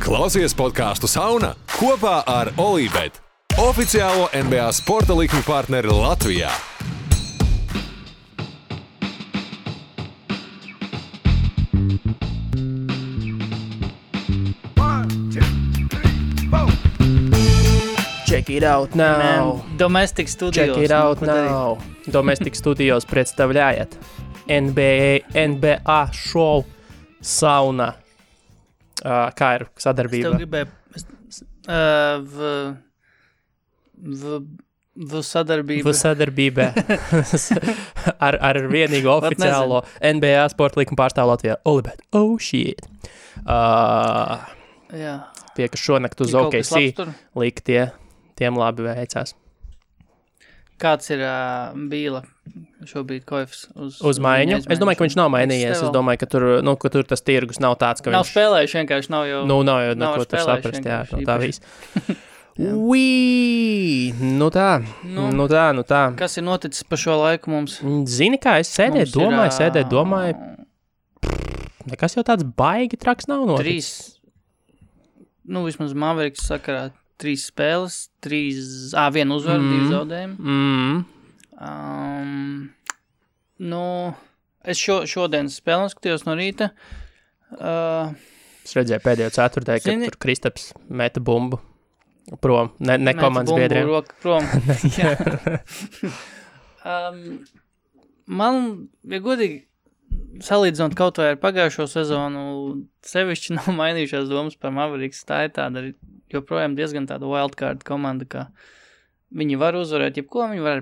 Klausies podcastu Sauna kopā ar Olībet, oficiālo NBA sporta likmi partneri Latvijā. Check it out now. Domestic Studios. Check it out now. Domestic Studios представляет NBA шоу Sauna. Kā ir sadarbība? Es tev gribēju V sadarbība ar vienīgo oficiālo NBA sporta likuma pārstāvu Latvijā. Olibet. Oh shit. Jā. Tie, kas šonakt uz OKC lika, tiem labi veicās. Kāds ir Bīla šobrīd koefs uz maiņu? Es domāju, ka viņš nav mainījies. Es domāju, ka tur tas tirgus nav tāds, ka nav viņš... spēlējuši, vienkārši nav jau... Nav jau neko tur saprast, jā, no tā viss. Nu tā. Kas ir noticis pa šo laiku mums? Zini kā, es sēdēju, domāju. Nekas jau tāds baigi traks nav noticis. Vismaz Mavericks sakarā 3 spēles, 1 uzvaru, 2 zaudējumi. Es šodien spēli skatījos no rīta. Es redzēju pēdējo ceturtdēļ, kad tur Kristaps meta bumbu prom, ne komandas biedriem. Meta bumbu roku prom. Man, ja godīgi, salīdzinot kaut vai ar pagājušo sezonu, sevišķi nav mainījušās domas par Mavericks. Tā ir tāda joprojām diezgan tāda wildcard komanda, ka viņi var uzvarēt jebko, viņi var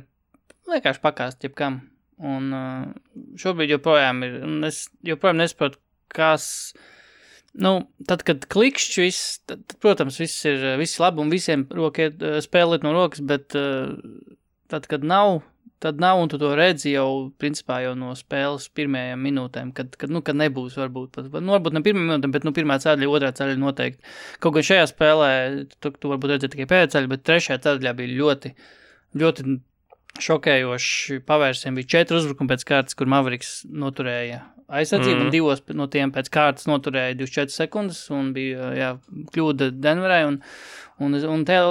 vienkārši pakāst jebkam. Un šobrīd joprojām ir, un es joprojām nesaprotu, kas, tad, kad klikšķi viss, tad, protams, viss labi un visiem spēlēt no rokas, bet tad, kad nav, un tu to redzi jau, principā jau no spēles pirmajām minūtēm, kad nebūs varbūt ne pirmajām minūtēm, bet pirmā ceļa, otrā ceļa noteikti. Kaut gan šajā spēlē, tu varbūt redzēji tikai pēdējā ceļa, bet trešajā ceļā bija ļoti, ļoti šokējoši pavērsieni. Bija 4 uzbrukumi pēc kārtas, kur Mavericks noturēja aizsardzību, un 2 no tiem pēc kārtas noturēja 24 sekundes, un bija, kļūda Denverai, un tajā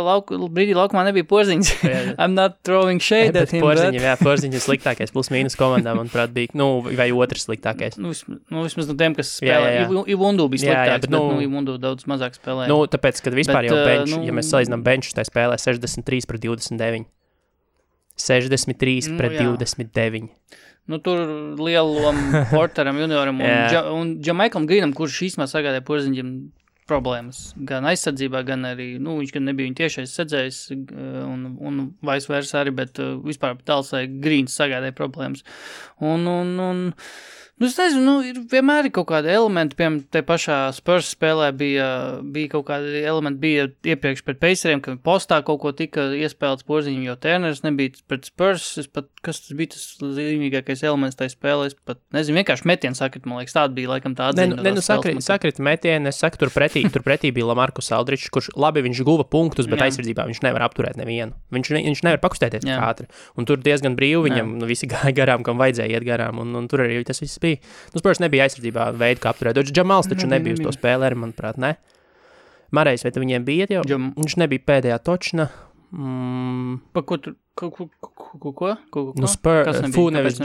brīdī laukumā nebija Porziņš. I'm not throwing shade at him, Porziņš ir sliktākais plus-mínus komandā, manuprāt, bija, vai otrs sliktākais. Vismaz no tiem, kas spēlē. Ivundu bija sliktāks, bet Ivundu daudz mazāk spēlē. Tāpēc, kad vispār jau bench, ja mēs salīdzinām benchus, tā spēlē 63-29. 63 pret 29. Tur lielu lomu Porteram junioram un Jamaikam Greenam, kurš īstenībā sagādāja Porziņģim problēmas. Gan aizsardzībā, gan arī, viņš gan nebija viņa tiešais sedzējs un vice versa arī, bet vispār Dalsai Greens sagādāja problēmas. Es nezinu, vienmēr ir kaut kādi elementi, piemēram, te pašā Spurs spēlē bija kaut kādi elementi, bija iepriekš pret Paceriem, ka postā kaut ko tika iespēlēts Porziņam, jo Turners nebija pret Spurs, kas tas bija tas zīmīgākais elements tajā spēlē, es pat nezinu, vienkārši metienu sakrit, man liekas, tāda bija laikam tā atzīme. Sakrit metienu, es saku, tur pretī bija Lamarcus Aldridge, kurš labi viņš guva punktus, bet aizsardzībā viņš nevar apturēt nevienu. Viņš nevar pakustēties tik ātri, un tur diezgan brīvi viņam visi gāja garām, kam vajadzēja iet garām, un tur arī tas viss bija. Spurs nebija aizsardzībā veidu, kā apturēt. Džamals taču nebija uz to spēlēri, manuprāt, ne? Marejs, vai viņiem bija jau? Viņš nebija pēdējā točna. Pa ko tur? Ko? Spurs, nevis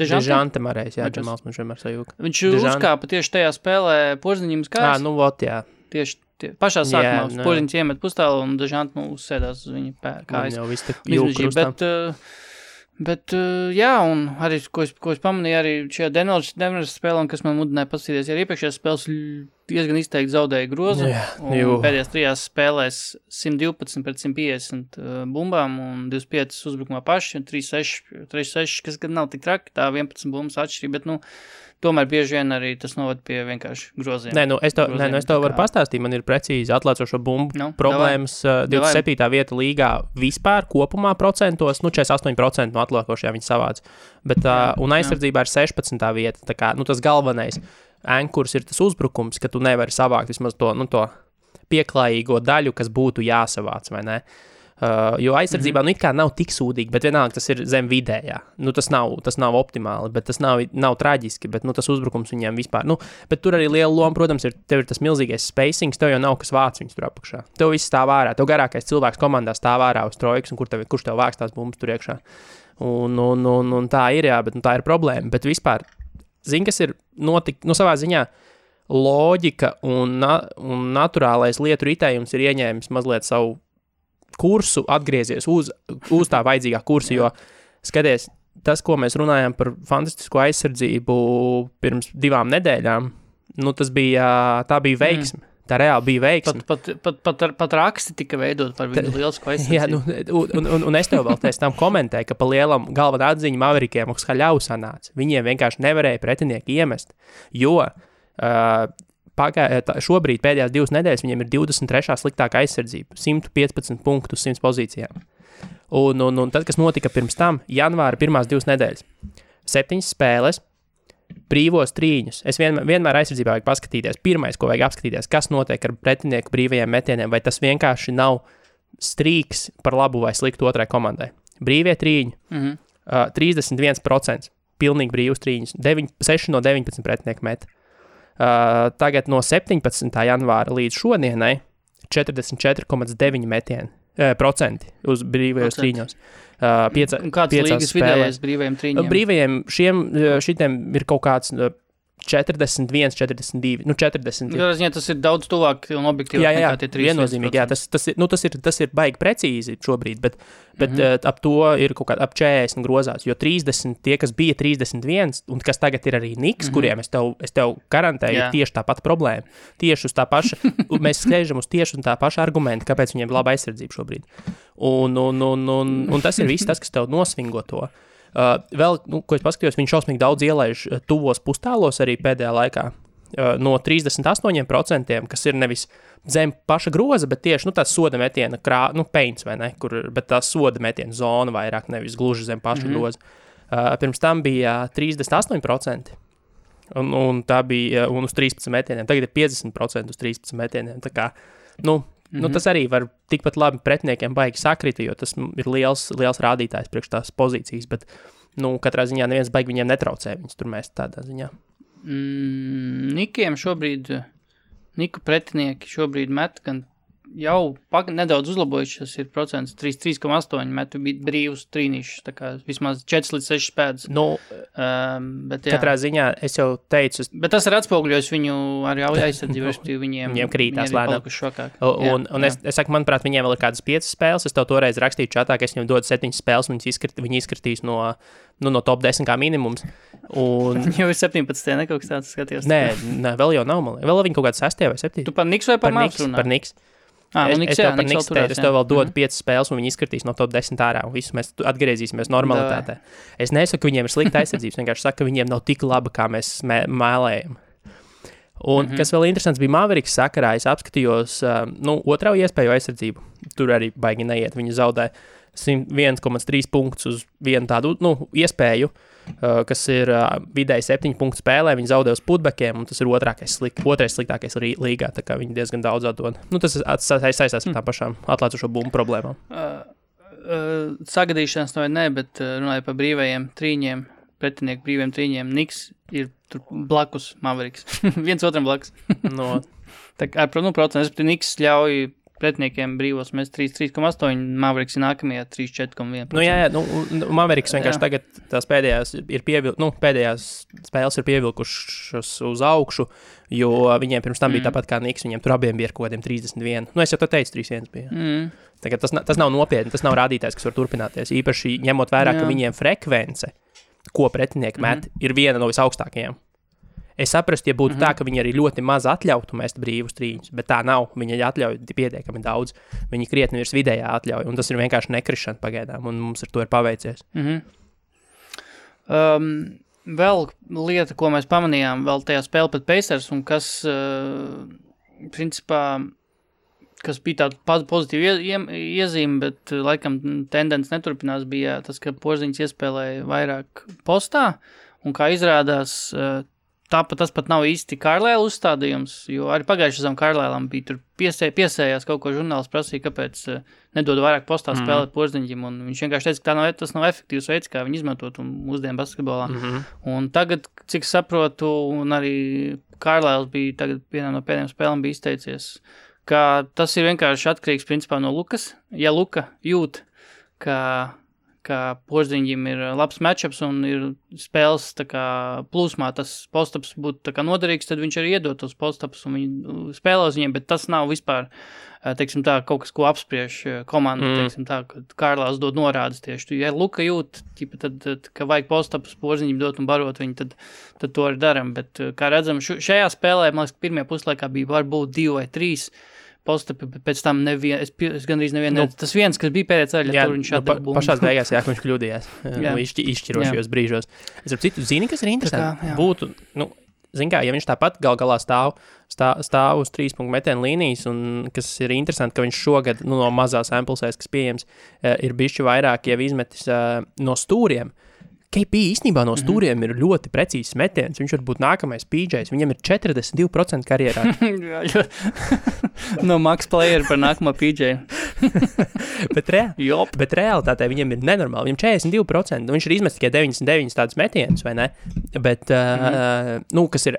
Dežante Marejs, Džamals man vienmēr sajūka. Viņš uzkāpa tieši tajā spēlē Porziņam kājas. Jā. Tieši pašā sākumā Porziņš iemet pustālu un Dežante uzsēdās uz viņa kājas. Jau viss tak jūk krustam. Bet, un arī, ko es pamanīju, arī šajā Denveras spēlē, kas man mudināja paskatīties, arī iepriekšējās spēles diezgan izteikti zaudēja grozu. Un pēdējās 3 spēlēs 112 pret 150 bumbām un 25 uzbrukumā paši, un 3-6, kas gan nav tik traki, tā 11 bumbas atšķirība, bet, tomēr bieži vien arī tas novad pie vienkārši groziem. Es tev varu pastāstīt, man ir precīzi atlēcošo bumbu problēmas. 27. vieta līgā vispār kopumā procentos, 48% no atlēkošajā viņi savāc. Bet, un aizsardzībā ir 16. vieta, tā kā, tas galvenais ankurs ir tas uzbrukums, ka tu nevari savākt vismaz to pieklājīgo daļu, kas būtu jāsavāc, vai ne? Jo aizsardzībā it kā nav tik sūdīgi, bet vienalga tas ir zem vidējā. Tas nav optimāli, bet tas nav traģiski, bet tas uzbrukums viņiem vispār. Bet tur arī liela loma, protams, tev ir tas milzīgais spacings, tev jau nav kas vāc viņus tur apakšā. Tev viss stāv ārā, tev garākais cilvēks komandā stāv ārā uz trojkas, un kurš tev vāks tās bumbas tur iekšā. Un tā ir, jā, bet tā ir problēma. Bet vispār, kas ir savā ziņā loģika un naturālais lietu ritējums ir ieņēmis mazliet savu kursu, atgriezies uz tā vajadzīgā kursa, jo skaties, tas, ko mēs runājām par fantastisko aizsardzību pirms 2 nedēļām, tā bija veiksme. Tā reāli bija veiksme. Pat raksti tika veidot par viņu lielisko aizsardzību. Jā, un es tev vēl tam komentēju, ka pa lielam galvenā atziņa Maverikiem Haļau sanāca. Viņiem vienkārši nevarēja pretinieki iemest, jo šobrīd pēdējās 2 nedēļas viņiem ir 23. sliktākā aizsardzība, 115 punktu uz 100 pozīcijām. Un tad, kas notika pirms tam, janvāra pirmās 2 nedēļas, 7 spēles, brīvos trīņus. Es vienmēr aizsardzībā vajag paskatīties. Pirmais, ko vajag apskatīties, kas notiek ar pretinieku brīvajiem metieniem, vai tas vienkārši nav strīks par labu vai sliktu otrai komandai. Brīvie trīņi, 31%, pilnīgi brīvus trīņus, 6 no 19 pretinieku met. Tagad no 17. janvāra līdz šodienai 44,9 procenti uz brīvajos trīņos. Un kāds līgas vidējais brīvajiem trīņiem? Brīvajiem šitiem ir kaut kāds 41, 42, 40. Jā, tas ir daudz tuvāk un objektīvāk nekā tie 3%. Viennozīmīgi, jā, tas ir baigi precīzi šobrīd, bet ap to ir kaut kā ap 40 grozās, jo 30, tie, kas bija 31, un kas tagad ir arī Niks, kuriem es tev garantēju, ir tieši tā pati problēma. Tieši uz tā paša, mēs skrēžam uz tieši un tā paša argumenta, kāpēc viņiem ir laba aizsardzība šobrīd. Un tas ir viss tas, kas tev nosvingo to. Vēl, ko es paskatījos, viņš šausmīgi daudz ielaiž tuvos pustālos arī pēdējā laikā. No 38%, kas ir nevis zem paša groza, bet tieši tās soda metiena, peints vai ne, bet tās soda metiena zona vairāk, nevis gluži zem paša groza. Pirms tam bija 38%, un tā bija un uz 13 metieniem. Tagad ir 50% uz 13 metieniem. Tā kā, tas arī var tikpat labi pretiniekiem baigi sakrita, jo tas ir liels rādītājs priekš tās pozīcijas, bet, katrā ziņā neviens baigi viņiem netraucē viņus tur mēs tādā ziņā. Niku pretinieki šobrīd met, gan jau nedaudz uzlabojušies ir procents, 3,8 metu brīvus trīnīšus, tā kā vismaz 4 līdz 6 spēdas. Bet, katrā ziņā es jau teicu... Bet tas ir atspoguļojis viņu arī aizsardzību, respektīvi viņiem krītās lēnām. Un es saku, manuprāt, viņiem vēl ir kādas 5 spēles, es tev toreiz rakstīju čatā, ka es viņiem dodu 7 spēles, un viņi izskatīs no top 10 kā minimums. Viņi jau ir 17, ne kaut kas tāds skatījos. Nē, vēl jau nav, vēl viņi kaut kāds 6 vai 7. Tu par Niks vai par Mavs runā? Par Niks. Es tev par Niks teicu, es tev vēl dodu 5 spēles, un viņi izskatīs no top 10 ārā, un visus mēs atgriezīsimies normalitātē. Es nesaku, ka viņiem ir slikta aizsardzības, vienkārši saku, ka viņiem nav tik laba, kā mēs mēlējam. Un kas vēl interesants bija Maveriks sakarā, es apskatījos, otrā iespēju aizsardzību, tur arī baigi neiet, viņi zaudē 1,3 punktus uz vienu tādu, iespēju, kas ir vidēji 7 punktu spēlē, viņi zaudē uz putbekiem, un tas ir otrais sliktākais līgā, tā kā viņi diezgan daudz atdod. Tas saistās ar tām pašām atlēcušo bumbu problēmām. Sagadīšanās vai ne, bet runāju par brīvajiem trīņiem, pretinieku brīviem trīņiem, Niks ir tur blakus Maveriks. Viens otram blakus. Tā kā, procents, Niks ļauj pretiniekiem brīvos mēs 3,8, Maveriks ir nākamajā 3,4,1%. Maveriks vienkārši tagad tās pēdējās spēles ir pievilkušas uz augšu, jo viņiem pirms tam bija tāpat kā Niks, viņiem tur abiem bija ar kaut kādiem 31. Es jau to teicu, 3,1 bija. Tagad tas nav nopietni, tas nav rādītājs, kas var turpināties. Īpaši ņemot vērā, ka viņiem frekvence, ko pretinieki met, ir viena no visaugstākajām. Es saprastu, ja būtu tā, ka viņi arī ļoti maz atļautu mest brīvus trīņus, bet tā nav. Viņi atļauj pietiekami daudz. Viņi krietni virs vidējā atļauj, un tas ir vienkārši nekrišana pagaidām, un mums ar to ir paveicies. Vēl lieta, ko mēs pamanījām, vēl tajā spēle pret Pacers, un kas, principā, kas bija tāda pozitīva iezīme, bet laikam tendence neturpinās, bija tas, ka Porziņš iespēlēja vairāk postā, un kā izrādās, tāpat tas pat nav īsti Kārlēla uzstādījums, jo arī pagājušajā sezonā Kārlēlam bija tur piesējās kaut ko žurnāls prasīja, kāpēc nedod vairāk postā spēlēt Porziņģim, un viņš vienkārši teica, ka tas nav efektīvs veids, kā viņi izmantot mūsdienu basketbolā. Un tagad, cik saprotu, un arī Kārlēls bija tagad vienā no pēdējiem spēlēm bija izteicies, ka tas ir vienkārši atkarīgs principā no Lukas. Ja Luka jūt, ka Porziņģim ir labs matchups un ir spēles tā kā plūsmā, tas postaps būtu tā kā noderīgs, tad viņš arī iedod tos postapus un viņi spēlē uz viņiem, bet tas nav vispār, teiksim tā, kaut kas, ko apspriež komanda, teiksim tā, kad Kārlās dod norādes tieši. Ja Luka jūt, tad ka vajag postapus Porziņģim dot un barot viņu, tad to arī daram, bet kā redzam, šajā spēlē, man liekas, pirmajā puslaikā bija varbūt 2 vai 3 postapi, bet pēc tam es gandrīz nevienu, tas viens, kas bija pēdējā ceļā, tur viņš atdeva bumbu. Pašās beigās, ka viņš kļūdījās izšķirošajos brīžos. Es ap citu, zini, kas ir interesanti? Būtu, zini kā, ja viņš tāpat galā stāv uz 3 punktu metienu līnijas, un kas ir interesanti, ka viņš šogad, no mazās samplesēs, kas pieejams, ir bišķi vairāk jau izmetis no stūriem. KP īstenībā no stūriem ir ļoti precīzs metiens. Viņš var būt nākamais PJs. Viņam ir 42% karjerā. No max player par nākamo PJ. bet realitātē viņam ir nenormāli. Viņam 42%. Viņš ir izmetis tikai 99 tādus metienus, vai ne? Bet, kas ir,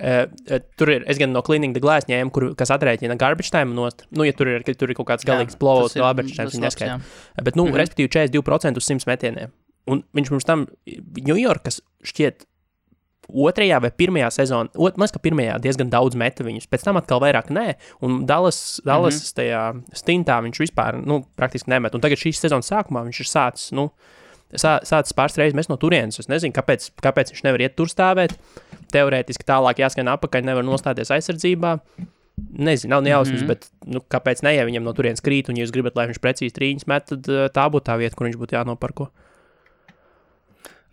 tur ir, es gan no Cleaning the Glass ņēmu, kas atrēķina garbage time nost. Ja tur ir kaut kāds galīgs blowouts, garbage time, viņi neskaita. Bet, respektīvi 42% uz 100 metieniem. Un viņš mums tam Ņujorkas šķiet 2. vai 1. sezonā, man ka 1. diezgan daudz meta viņus, pēc tam atkal vairāk nē, un Dallas tajā stintā viņš vispār, praktiski nemet. Un tagad šīs sezonas sākumā viņš ir sācis pāris reizes mest no turienes. Es nezinu, kāpēc viņš nevar iet tur stāvēt. Teorētiski tālāk jāskan apakaļ, nevar nostāties aizsardzībā. Nezinu, nav nejausmas, bet kāpēc ne, ja viņam no turienes krīt, un ja jūs gribat, lai viņš precīzi trīņas met, tad tā būtu tā vieta, kur viņš būtu jānoparko.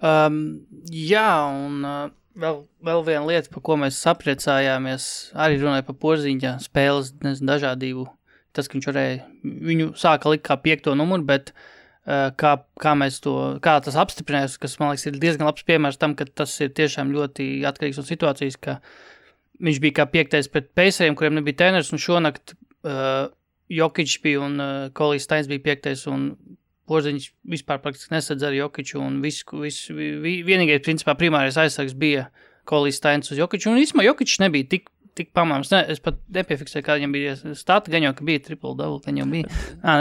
Jā, un vēl viena lieta, par ko mēs sapriecājāmies, arī runāja par Porziņģa spēles, dažādību. Tas, ka viņš varēja, viņu sāka likt kā 5. numuru, bet kā tas apstiprinājās, kas, man liekas, ir diezgan labs piemērs tam, ka tas ir tiešām ļoti atkarīgs no situācijas, ka viņš bija kā 5. pret Paceriem, kuriem nebija treneris, un šonakt Jokić bija un Kolijs Steins bija 5. un Porziņš vispār praktiski nesadz ar Jokiću, un vienīgais, principā, primārais aizsargs bija Kolijs Steins uz Jokiću, un īsumā Jokićs nebija tik pamāms. Es pat nepiefiksēju, kā viņam bija stati, gan jau, ka bija triple-double, gan jau bija.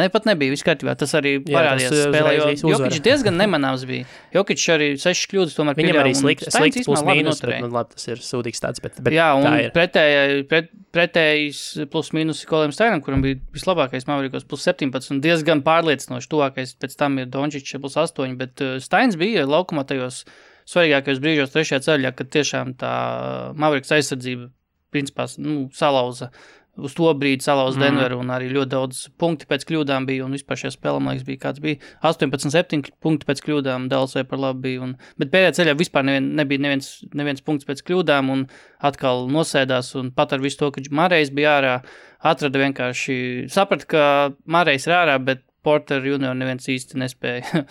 Pat nebija, viss kārtībā. Tas arī parādījās spēlē, jo Jokićs diezgan nemanāms bija. Jokićs arī 6 kļūdas tomēr pieļāva. Viņam arī slikts plus mīnus, bet labi, tas ir sūdīgs tāds, bet jā, un pretējais plus mīnus Koliem Steinam, kuram bija vislabākais Mavericos plus 17, un diezgan pārliecinoši tuvākais, pēc tam ir Dončić plus 8, bet Steins bija laukumā tajos svarīgākajos brīžos 3. ceļā, kad tiešām tā Mavericks aizsardzība principā, salauza uz to brīdi salauza Denveru, un arī ļoti daudz punkti pēc kļūdām bija, un vispār šajā spēlē, man liekas, bija kāds bija 18-7 punkti pēc kļūdām, Dallasai par labu bija, bet pēdējā ceļā vispār nebija neviens punkts pēc kļūdām, un atkal nosēdās, un pat ar visu to, ka Marejs bija ārā, atrada vienkārši, saprata, ka Marejs ir ārā, bet Porter junior neviens īsti nespēja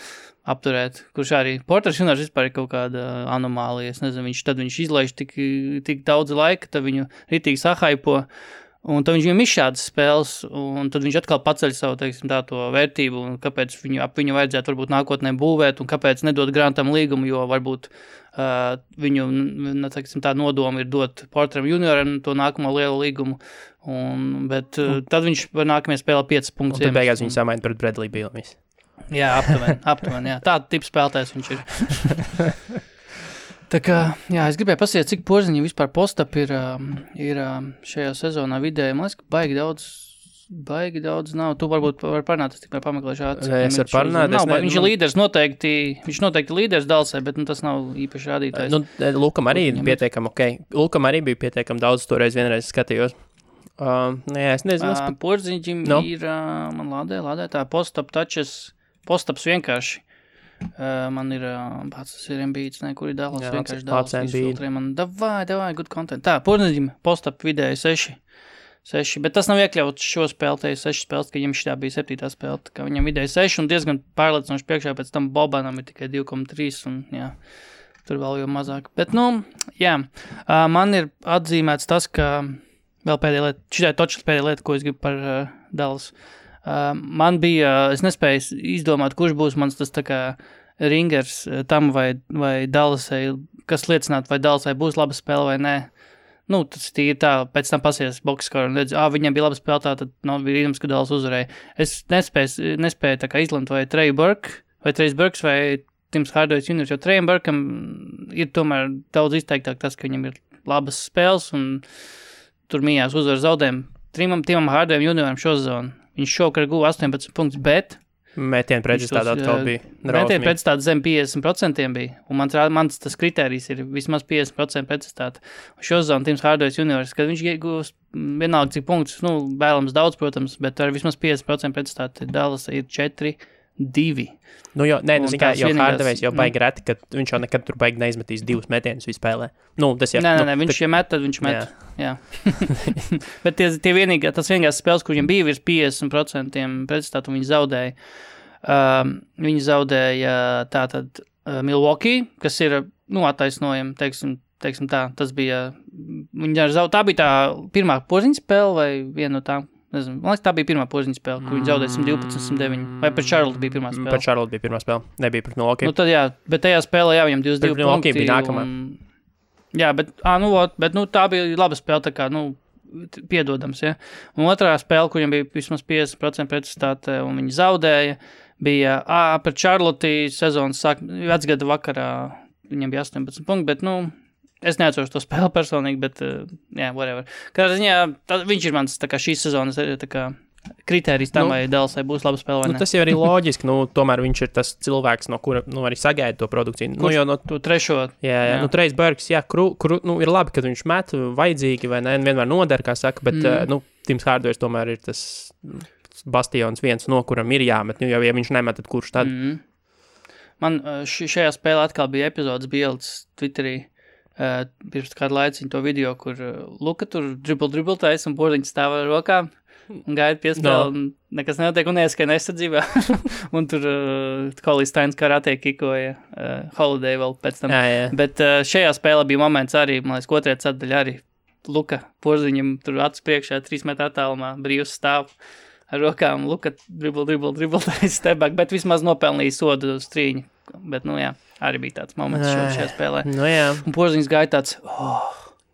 apturēt, kurš arī Porters juniors vispār ir kaut kāda anomālija, es nezinu, tad viņš izlaiž tik daudz laika, tad viņu ritīgi sahaipo, un tad viņam izšādas spēles, un tad viņš atkal paceļ savu, teiksim, to vērtību, un kāpēc viņu vajadzētu varbūt nākotnē būvēt, un kāpēc nedot Grantam līgumu, jo varbūt viņu, teiksim, tā nodoma ir dot Porteram junioram to nākamo lielu līgumu, bet tad viņš var nākamajā spēlē 5 punktus. Un tad beigās viņu samaina pret Bradley Beal. Jā, aptuveni, jā. Tāda tipa spēlētājs viņš ir. Tā kā, jā, es gribēju pasiet, cik Porziņa vispār postap ir šajā sezonā vidēji. Man liekas, ka baigi daudz nav. Tu varbūt var parunāt, es tikai pameklēšu ātri. Es varu parunāt. Viņš ir līderis viņš noteikti līderis Dallasai, bet tas nav īpaši rādītājs. Lukam arī pietiekam, Lukam arī bija pietiekam daudz, toreiz vienreiz skatījos. Jā, es nezinu. Porziņģim ir, man lādē tā postaps vienkārši. Man ir, tas ir Embiids, kur ir Dallas, vienkārši Dallas izfiltrē man. Davai, good content. Tā, Porziņģim postap vidēji 6, bet tas nav iekļauts šo spēlēju 6 spēles, ka viņam šitā bija 7. spēle, ka viņam vidēji 6 un diezgan pārliecinoši priekšā, pēc tam Bobanam ir tikai 2,3 un jā. tur vēl jau mazāk. Bet, jā, man ir atzīmēts tas, ka vēl pēdējā lieta, šitai točas pēdējā lieta, ko es gribu par Dallas. Man bija, es nespēju izdomāt, kurš būs mans tas tā kā ringers tam vai Dallasai, kas liecinātu, vai Dallasai būs laba spēle vai nē. Tas tīri tā, pēc tam pasies boxskaru un redz, viņam bija laba spēle, tā tad bija rīdums, ka Dallas uzvarēja. Es nespēju tā kā izlemt, vai Trey Burks vai Tims Hardaway Jr., jo Treyam Burkam ir tomēr daudz izteiktāk tas, ka viņam ir labas spēles un tur mījās uzvar zaudējumu. Timam Hardaway Jr. šo sezonu. Viņš šokar guva 18 punktus, bet metienu pretstādā atkal bija. Metienu pretstādā zem 50% bija. Un mans tas kritērijs ir vismaz 50% pretstādā. Un šo sezonu Tims Hardaway Jr., kad viņš iegūs vienalga cik punktus, vēlams daudz, protams, bet ar vismaz 50% pretstādā Dallas ir 4-2. Jo Hardaway's jau baigi reti, ka viņš jau nekad tur baigi neizmetīs 2 metienus vispēlē. Nē, viņš met, tad viņš met. Jā. Bet tas vienīgās spēles, kur viņam bija virs 50% pretstātu, viņi zaudēja. Viņi zaudēja tātad Milwaukee, kas ir, attaisnojami, teiksim tā, tas bija, tā bija tā pirmā porziņa spēle vai viena no tām. Nezinu, man liekas, tā bija pirmā porziņa spēle, kur viņi zaudēja 112-109. Vai pret Charlotte bija pirmā spēle? Pret Charlotte bija pirmā spēle, nebija pret Milwaukee. Tad jā, bet tajā spēlē viņam 22 punkti. Milwaukee bija nākamā. Jā, bet tā bija laba spēle, tā kā, piedodams, ja. Un otrā spēle, kur viņam bija vismaz 50% pretstāte, un viņi zaudēja, bija, pret Charlotte sezonas vecgada vakarā, viņam bija 18 punkti, bet, es neatceros to spēli personīgi, bet, whatever. Kādā ziņā, viņš ir mans, tā kā šīs sezonas, tā kā kritērijs tam, vai Dallasai būs laba spēle vai ne. Tas jau arī loģiski, tomēr viņš ir tas cilvēks, no kura, arī sagaida to produkciju. To trešo. Jā. Trejs Burks, ir labi, kad viņš met vajadzīgi, vai ne, vienmēr noder, kā saka, bet, Tims Hardaway tomēr ir tas bastions viens, no kuram ir jāmet, jo, ja viņš nemet, tad kurš tad? Man šajā spēlē atkal bija epizodes bildes Twitterī, pirms kādu laiciņu to video, kur Luka tur dribble taisa un porziņš stāv ar rokām un gaida piespēli un nekas nenotiek un ieskan aizsardzībā. Un tur Collie Steins karate kikoja Holiday vēl pēc tam. Jā. Bet šajā spēlē bija moments arī, man liekas, otrajā ceturdaļā arī Luka porziņam tur acis priekšā 3 metru attālumā brīvs stāv ar rokām. Luka dribble taisa stebāk, bet vismaz nopelnīja sodu strīņu. Bet, arī bija tāds moments šajā spēlē. Un porziņš gāja tāds,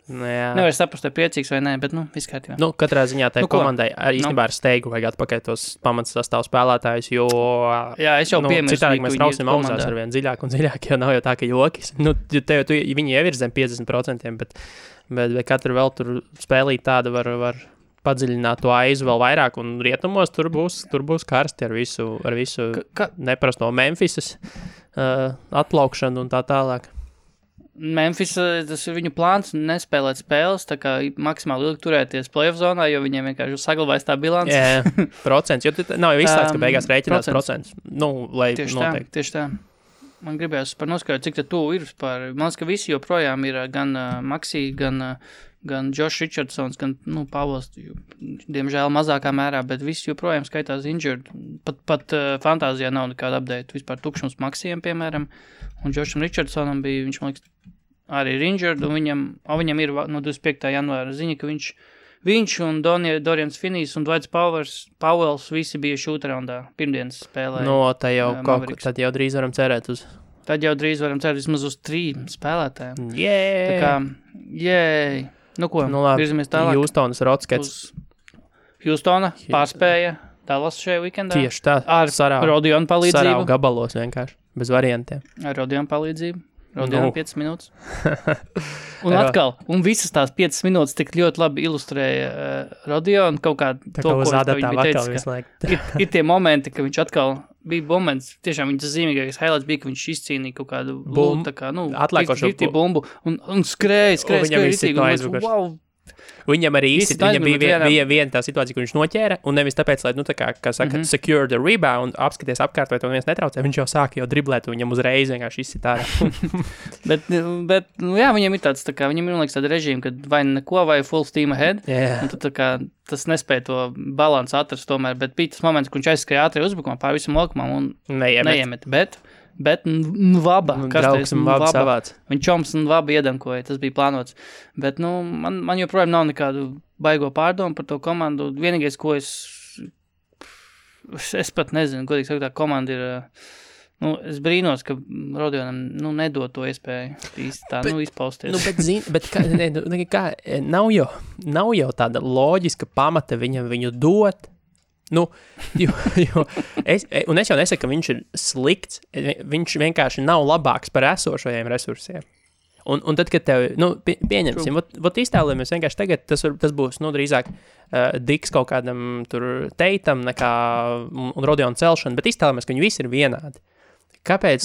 nevar saprast, vai priecīgs vai nē, bet, viss kārtībā. Katrā ziņā tai komandai īstenībā ar steigu vajag atpakaļ tos pamats sastāvu spēlētājus, jo... Jā, es jau piemirstu. Citādi mēs trausim augstās ar vien dziļāk un dziļāk, jo nav jau tā, ka jokis. Viņi jau ir zem 50%, bet katru vēl tur spēlīt tāda var padziļināt to aizu vēl vairāk, un rietumos tur būs karsti ar visu neparasto Memphisas atplaukšanu un tā tālāk. Memphis, tas ir viņu plāns nespēlēt spēles, tā kā maksimāli ilgi turēties playoff zonā, jo viņiem vienkārši saglabājas tā bilance. Jā, procents, jo nav jau izslēgts, ka beigās rēķinās procents. Lai noteikti. Tieši tā. Man gribējās par noskaidrot, cik tu ir par... Man liekas, ka visi joprojām ir gan Maxi, gan Josh Richardsons, gan, Pavels, diemžēl mazākā mērā, bet visi joprojām skaitās injured. Pat fantāzijā nav nekāda update. Vispār tukšums Maxijam, piemēram, un Josham Richardsonam bija, viņš, man liekas, arī ir injured, un viņam ir no 25. janvāra ziņa, ka viņš un Dorians Finney's un Dwights Powells visi bija šūtraundā pirmdienas spēlē. Tad jau drīz varam cerēt uz... Tad jau drīz varam cerēt vismaz uz 3 spēlētājiem. Tā kā, virzamies tālāk. Houstonas Rockets. Houstona pārspēja Dallas šajā weekendā. Tieši tā. Ar Rodionu palīdzību. Sarau gabalos vienkārši, bez variantiem. Ar Rodionu palīdzību. Rodionu 5 minūtes. Un atkal, visas tās 5 minūtes tik ļoti labi ilustrēja Rodionu kaut kā to, ko viņš teica, ir tie momenti, ka viņš atkal bija moments, tiešām viņas zīmīgākais highlights bija, ka viņš izcīnīja kaut kādu bumbu, tā kā, atlēkošo bumbu, un skrēja, wow. Viņam arī īsti, viņam bija viena tā situācija, kur viņš noķēra, un nevis tāpēc, lai, kā saka, secure the rebound, apskaties apkārt, vai to neviens netraucē, viņš jau sāka jau driblēt, un viņam uzreiz vienkārši izsit ārā. bet, viņam ir tāds, tā kā, viņam ir, liekas, tāda režīma, kad vai neko, vai full steam ahead, un tad, tā kā, tas nespēja to balansu atrast tomēr, bet bija tas moments, kur viņš aizskrēja ātri uzbrukumā pār visam laukumam un neiemet, bet Bet Vaba, draugs un Vaba savāds. Viņa čoms un Vaba iedankoja, tas bija plānots. Bet, man joprojām nav nekādu baigo pārdomu par to komandu. Vienīgais, ko es pat nezinu, godīgi sakot, tā komanda ir, es brīnos, ka Rodionam, nedod to iespēju īsti tā, izpausties. Bet nav jau tāda loģiska pamata viņu dot. Es jau nesaku, ka viņš ir slikts, viņš vienkārši nav labāks par esošajiem resursiem. Un tad, kad tev, pieņemsim, iztēlojamies vienkārši tagad, tas būs, drīzāk Diks kaut kādam tur Teitam nekā un Rodionu celšana, bet iztēlojamies, ka viņi visi ir vienādi. Kāpēc,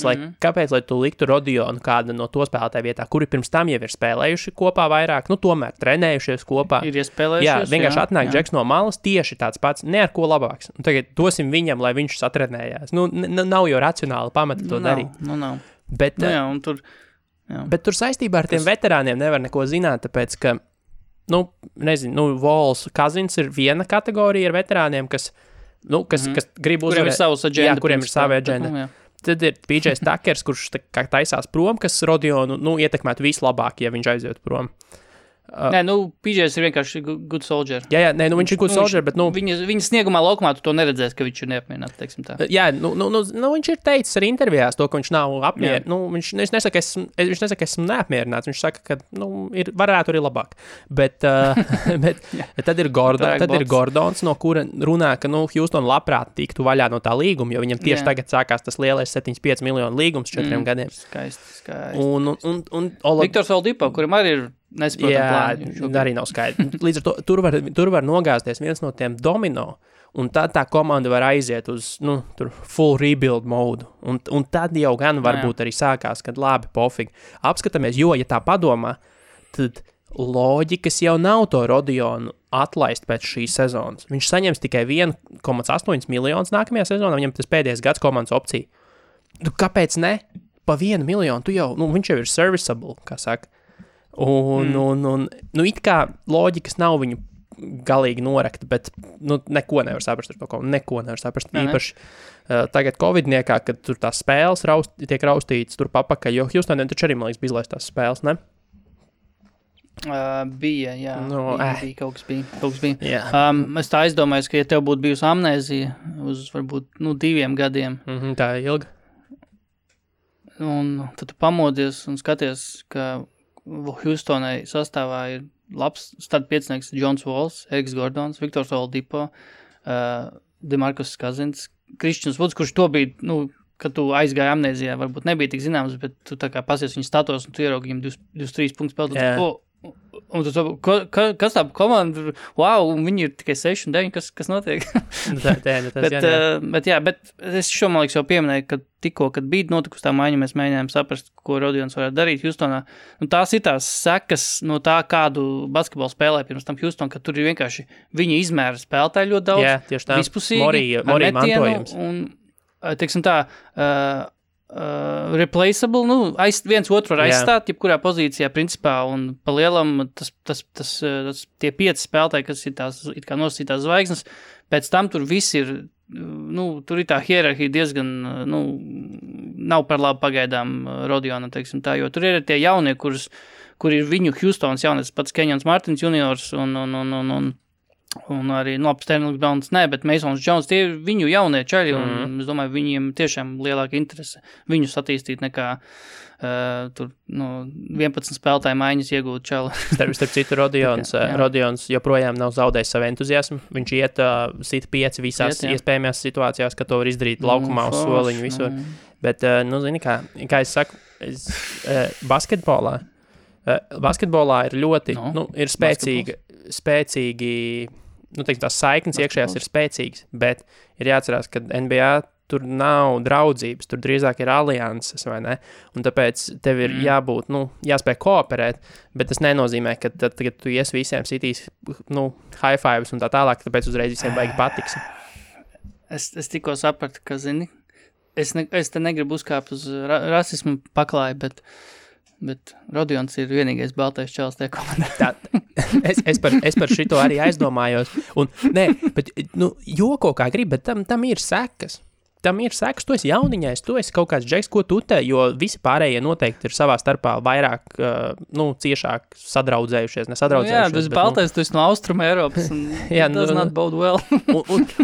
lai tu liktu Rodionu kādu no to spēlētāju vietā, kuri pirms tam jau ir spēlējuši kopā vairāk, tomēr trenējušies kopā? Ir iespēlējušies, jā. Vienkārši atnāk Džeks no malas tieši tāds pats, ne ar ko labāks. Un tagad dosim viņam, lai viņš satrenējās. Nav jau racionāli pamata to darīt. Nav. Bet, un tur... Jā. Bet tur saistībā ar tiem veterāniem nevar neko zināt, tāpēc, ka, Vols Kazins ir viena kategorija ar veterāniem, kas grib uzvarēt. Kuriem ir sava aģenda. Tad ir PJs Takers, kurš taisās prom, kas Rodionu, ietekmētu vislabāk, ja viņš aiziet prom. PJs ir vienkārši good soldier. Jā, viņš ir good soldier, bet, Viņa sniegumā laukumā tu to neredzēsi, ka viņš ir neapmierināts, teiksim tā. Jā, viņš ir teicis arī intervijās to, ka viņš nav apmierināts. Viņš nesaka, ka esmu neapmierināts, viņš saka, ka, varētu arī labāk. Bet tad ir Gordons, no kura runā, ka, Houston labprāt tiktu vaļā no tā līguma, jo viņam tieši tagad sākās tas lielais 75 miljonu līgums 4 gadiem. Skaisti. Un Viktors Oladipo, kurim arī ir nesaprotam plāni. Arī nav skaidrs. Līdz ar to tur var nogāzties viens no tiem domino, un tad tā komanda var aiziet uz, full rebuild modu. Un tad jau gan varbūt arī sākās, kad labi, pofīgi. Apskatāmies, jo, ja tā padomā, tad loģikas jau nav to Rodionu atlaist pēc šīs sezonas. Viņš saņems tikai 1,8 miljonus nākamajā sezonā, viņam tas pēdējais gads komandas opcija. Kāpēc ne? Pa 1 miljonu, viņš jau ir serviceable, kā saka. Un it kā loģikas nav viņu galīgi norakta, bet neko nevar saprast ar to, neko nevar saprast. Īpaši tagad Covidniekā, kad tur tās spēles tiek raustītas tur papakaļ, jo Houstoniem taču arī, man liekas, bija izlaist tās spēles, ne? Bija, jā. Bija, kaut kas bija. Jā. Es tā aizdomājos, ka ja tev būtu bijusi amnēzija uz varbūt 2 gadiem. Tā ir ilga. Un tad tu pamodies un skaties, ka Houstonai sastāvā ir labs startpiecinieks Jons Walls, Eriks Gordons, Viktors Oladipo, DeMarcus Cousins, Kristians Woods, kurš to bija, kad tu aizgāji amnēzijā, varbūt nebija tik zināms, bet tu tā kā pasies viņu status un tu ieraugi viņam 23 punktus spēlēt. Un tu kas tā komanda, wow, un viņi ir tikai 6 un 9, kas notiek? Bet es šo, man liekas, jau pieminēju, ka tikko, kad bija notikusi tā maiņa, mēs mēģinājām saprast, ko Rodions varētu darīt Houstonā. Tās ir tās sekas no tā, kādu basketbolu spēlē pirms tam Houston, ka tur ir vienkārši viņa izmēra spēlētāji ļoti daudz. Jā, tieši tā. Vispusīgi, Morī mantojums. Un, teiksim tā, replaceable, viens otru var aizstāt, jebkurā pozīcijā principā, un pa lielam tie 5 spēlētāji, kas ir tās, it kā nosacītās zvaigznes, pēc tam tur viss ir, tur ir tā hierarhija diezgan, nav par labu pagaidām Rodionam, teiksim tā, jo tur ir tie jaunie, kur ir viņu Houstons jaunies, pats Keņons Martins juniors un arī, Sterlings Browns, bet Masons Jones, tie ir viņu jaunie čaļi, un es domāju, viņiem tiešām lielāka interese viņus attīstīt nekā tur, 11 spēlētāju maiņas iegūt čali. Starp citu, Rodions joprojām nav zaudējis savu entuziasmu. Viņš iet sit 5 visās iespējamās situācijās, ka to var izdarīt laukumā uz soliņu visur. Bet, zini, kā es saku, basketbolā ir ļoti, ir spēcīgi, tās saiknes iekšējās ir spēcīgas, bet ir jāatcerās, ka NBA tur nav draudzības, tur drīzāk ir alianses, vai ne? Un tāpēc tev ir jābūt, jāspēj kooperēt, bet tas nenozīmē, ka tad, kad tu ies visiem sitīs, high fives un tā tālāk, tāpēc uzreiz visiem baigi patiks. Es tikko sapratu, ka, zini, es te negribu uzkāpt uz rasismu paklāju, bet Rodions ir vienīgais baltais čalis tajā komandā. Es par šito arī aizdomājos. Un, joko kā grib, bet tam ir sekas. tam ir sekas, tu esi jauniņais, tu esi kaut kāds džeks, ko tu te, jo visi pārējie noteikti ir savā starpā vairāk, ciešāk sadraudzējušies, nesadraudzējušies. Jā, tas baltais, tu esi no Austruma Eiropas, un does not bode well.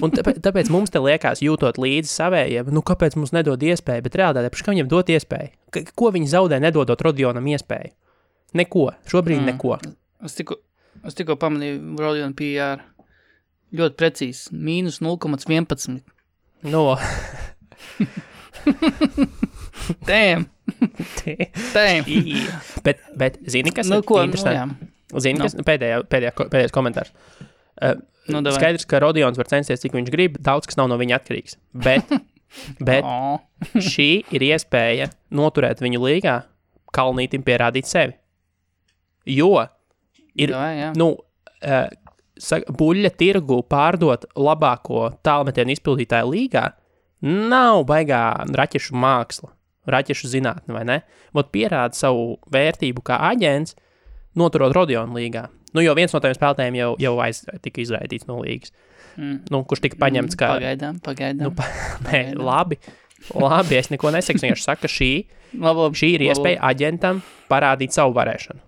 un tāpēc mums te liekas, jūtot līdzi savējiem, kāpēc mums nedod iespēju, bet realitātē, kā viņam dot iespēju? Ko viņi zaudē, nedodot Rodionam iespēju? Neko, šobrīd neko. Es tikko pamanīju Rodion PR. Ļoti precīzi, mīnus 0,11. No. Damn. bet zini, kas ir interesanti? Zini, kas pēdējais komentārs. Skaidrs, ka Rodions var censties, cik viņš grib, daudz kas nav no viņa atkarīgs. Bet šī ir iespēja noturēt viņu līgā, Kalnītim pierādīt sevi. Jo ir, buļļa tirgu pārdot labāko tālmetienu izpildītāju līgā nav baigā raķešu māksla, raķešu zinātne, vai ne? Vot pierāda savu vērtību kā aģents, noturot Rodionu līgā. Jo viens no tiem spēlētājiem jau tika izraidīts no līgas. Kurš tika paņemts kā... Pagaidām. Labi, es neko nesaku, vienkārši saku, ka šī ir iespēja aģentam parādīt savu varēšanu.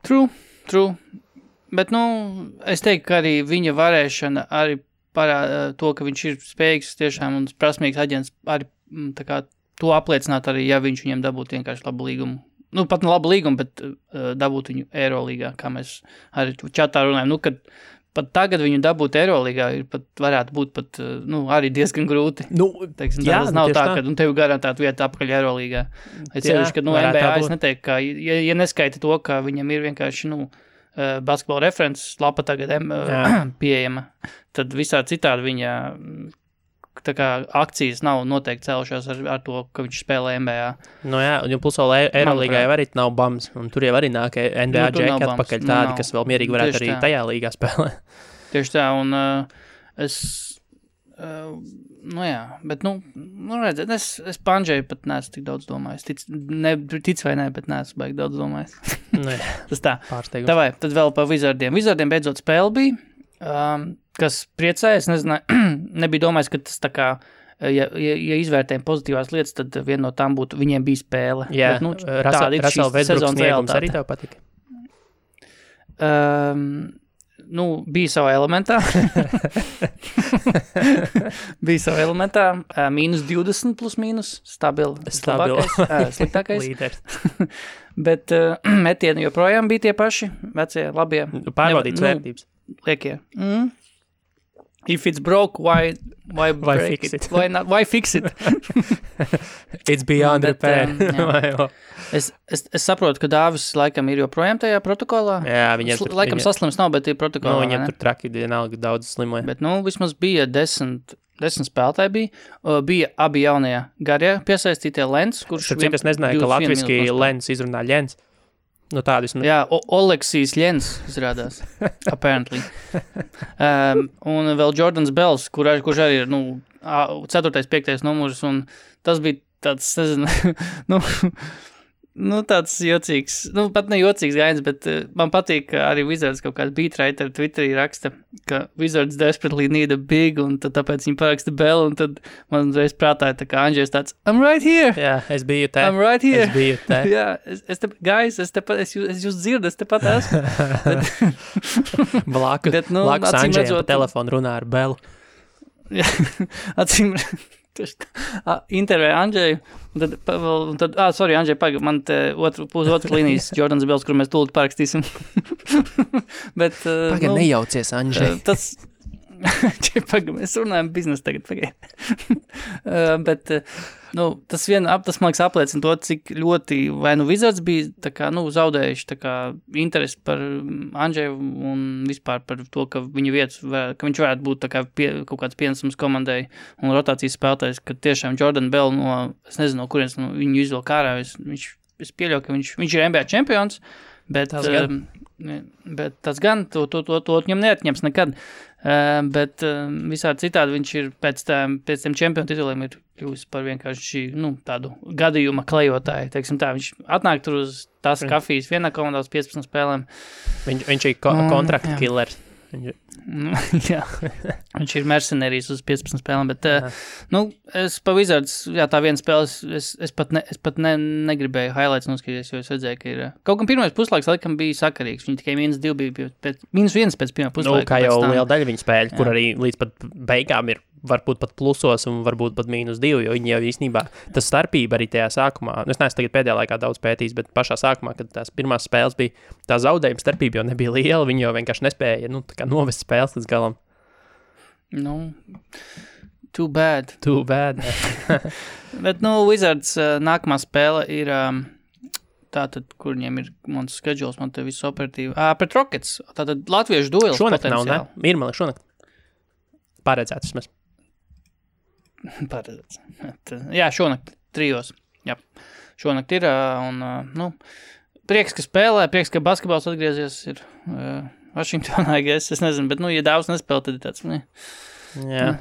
True, bet, es teiktu, ka arī viņa varēšana arī parāda to, ka viņš ir spējīgs tiešām un prasmīgs aģents arī tā kā to apliecināt arī, ja viņš viņiem dabūtu vienkārši labu līgumu. Pat ne labu līgumu, bet dabūtu viņu Eirolīgā, kā mēs arī čatā runājam. Kad pat tagad viņu dabūt Eirolīgā varētu būt arī diezgan grūti. Tas nav tā, ka tev garantētu vietu apakaļ Eirolīgā. Es ceļuši, ka NBA es neteiktu, ka, ja neskaita to, ka viņam ir vienkārši, basketbola references lapa tagad pieejama, tad visā citādi viņa tā kā akcijas nav noteikti cēlušās ar to, ka viņš spēlē NBA. Un plus vēl Eirolīgā jau arī nav bams, un tur jau arī nāk NBA džeki atpakaļ tādi, kas vēl mierīgi varētu arī tajā līgā spēlē. Tieši tā, un es bet, redziet, es Pandžeju pat neesmu tik daudz domājis. Tic vai ne, bet neesmu baigi daudz domājis. Tas tā. Pārsteigums. Tavai, tad vēl par Wizardiem. Wizardiem beidzot spēle bija, kas priecēja, es nezinu, nebija domājis, ka tas tā kā, ja izvērtējam pozitīvās lietas, tad viena no tām būtu, viņiem bija spēle. Jā, Russell Westbrook sniegums arī tev patika? Bija savā elementā. Mīnus 20 plus mīnus, sliktākais. Līderis. Bet metieni joprojām bija tie paši, vecie, labie. Pārbaudīts vērtības. Liekie. If it's broke, why break fix it? Why fix it? It's beyond repair. Es saprotu, ka Dāvis laikam ir joprojām tajā protokolā. Jā, viņam saslims nav, bet ir protokolā. Viņam tur traki vienalga daudz slimoja. Bet, vismaz bija 10 spēlētāji bija abi jaunie garie piesaistītie Lens, kurš... Cik es nezināju, ka latviski Lens izrunā Ļens. Tādu esmu... Jā, Oleksijs Ļens izrādās, apparently. Un vēl Jordans Bells, kurš arī ir, 4. 5. numurs, un tas bija tāds, nezinu, tāds jocīgs, pat ne jocīgs gainis, bet man patīk, ka arī Wizards kaut kāds beatwriter Twitterī raksta, ka Wizards desperately need a big, un tāpēc viņi paraksta Bell, un tad man reiz prātāja, tā kā Andžejs tāds, I'm right here! Jā, es biju te. I'm right here! Es biju te. Jā, es jūs dzirdu, es tepat esmu. Blakus Andžejam pa telefonu runā ar Bellu. Jā, acīm... intervēja Andžeju, un tad Andžej, pagaid, man te otru līnijas Jordans Bells, kur mēs tūlīt parakstīsim. Bet, pagaid, nejaucies, Andžej. Tas, mēs runājam biznesu tagad, pagaid. Bet, tas man liekas apliecina to, cik ļoti, vai Wizards bija, tā kā, zaudējuši, tā kā, interesi par Andžeju un vispār par to, ka viņa vietas, ka viņš varētu būt tā kā kaut kāds pienesums komandai un rotācijas spēlētājs, ka tiešām Jordan Bell es nezinu, no kurienes viņu izvēl kārā, es pieļauju, ka viņš ir NBA čempions, bet tas gan, to viņam neatņems nekad. Bet visādi citādi viņš ir pēc tiem čempionu tituliem ir kļuvis par vienkārši tādu gadījuma klejotāju. Teiksim tā, viņš atnāk tur uz tās kafijas vienā komandā uz 15 spēlēm. Viņš ir kontrakta killers. Jā, viņš ir mercenārijs uz 15 spēlēm, bet, es pa Wizards, tā viena spēle, es pat negribēju highlights noskatīties, jo es redzēju, ka ir, kaut gan pirmais puslaiks laikam bija sakarīgs, viņi tikai -2 bija, -1 pēc pirmā puslaika. Kā jau liela daļa viņa spēļu, kur arī līdz pat beigām ir varbūt pat plusos un varbūt pat -2, jo viņi jau īstenībā, tas starpība arī tajā sākumā, es neesmu tagad pēdējā laikā daudz pētījis, bet pašā sākumā, kad tās pirmās spēles bija, tā zaudējuma starpība jau nebija liela, viņi jau vienkārši nespēja, tā kā novest spēles līdz galam. Too bad. Bet, Wizards nākamā spēle ir tātad, kur viņiem ir mans schedules, man te viss operatīvi. Pret Rockets, tātad latviešu duels šonakt potenciāli. Nav, ne? Irmali, šonakt. Paredzēts vismaz. Paredzēts. Jā, šonakt 3. Jā, šonakt ir, un, prieks, ka spēlē, prieks, ka basketbols atgriezies ir Vašingtonā, es nezinu, bet, ja daudz nespēlē, tad ir tāds,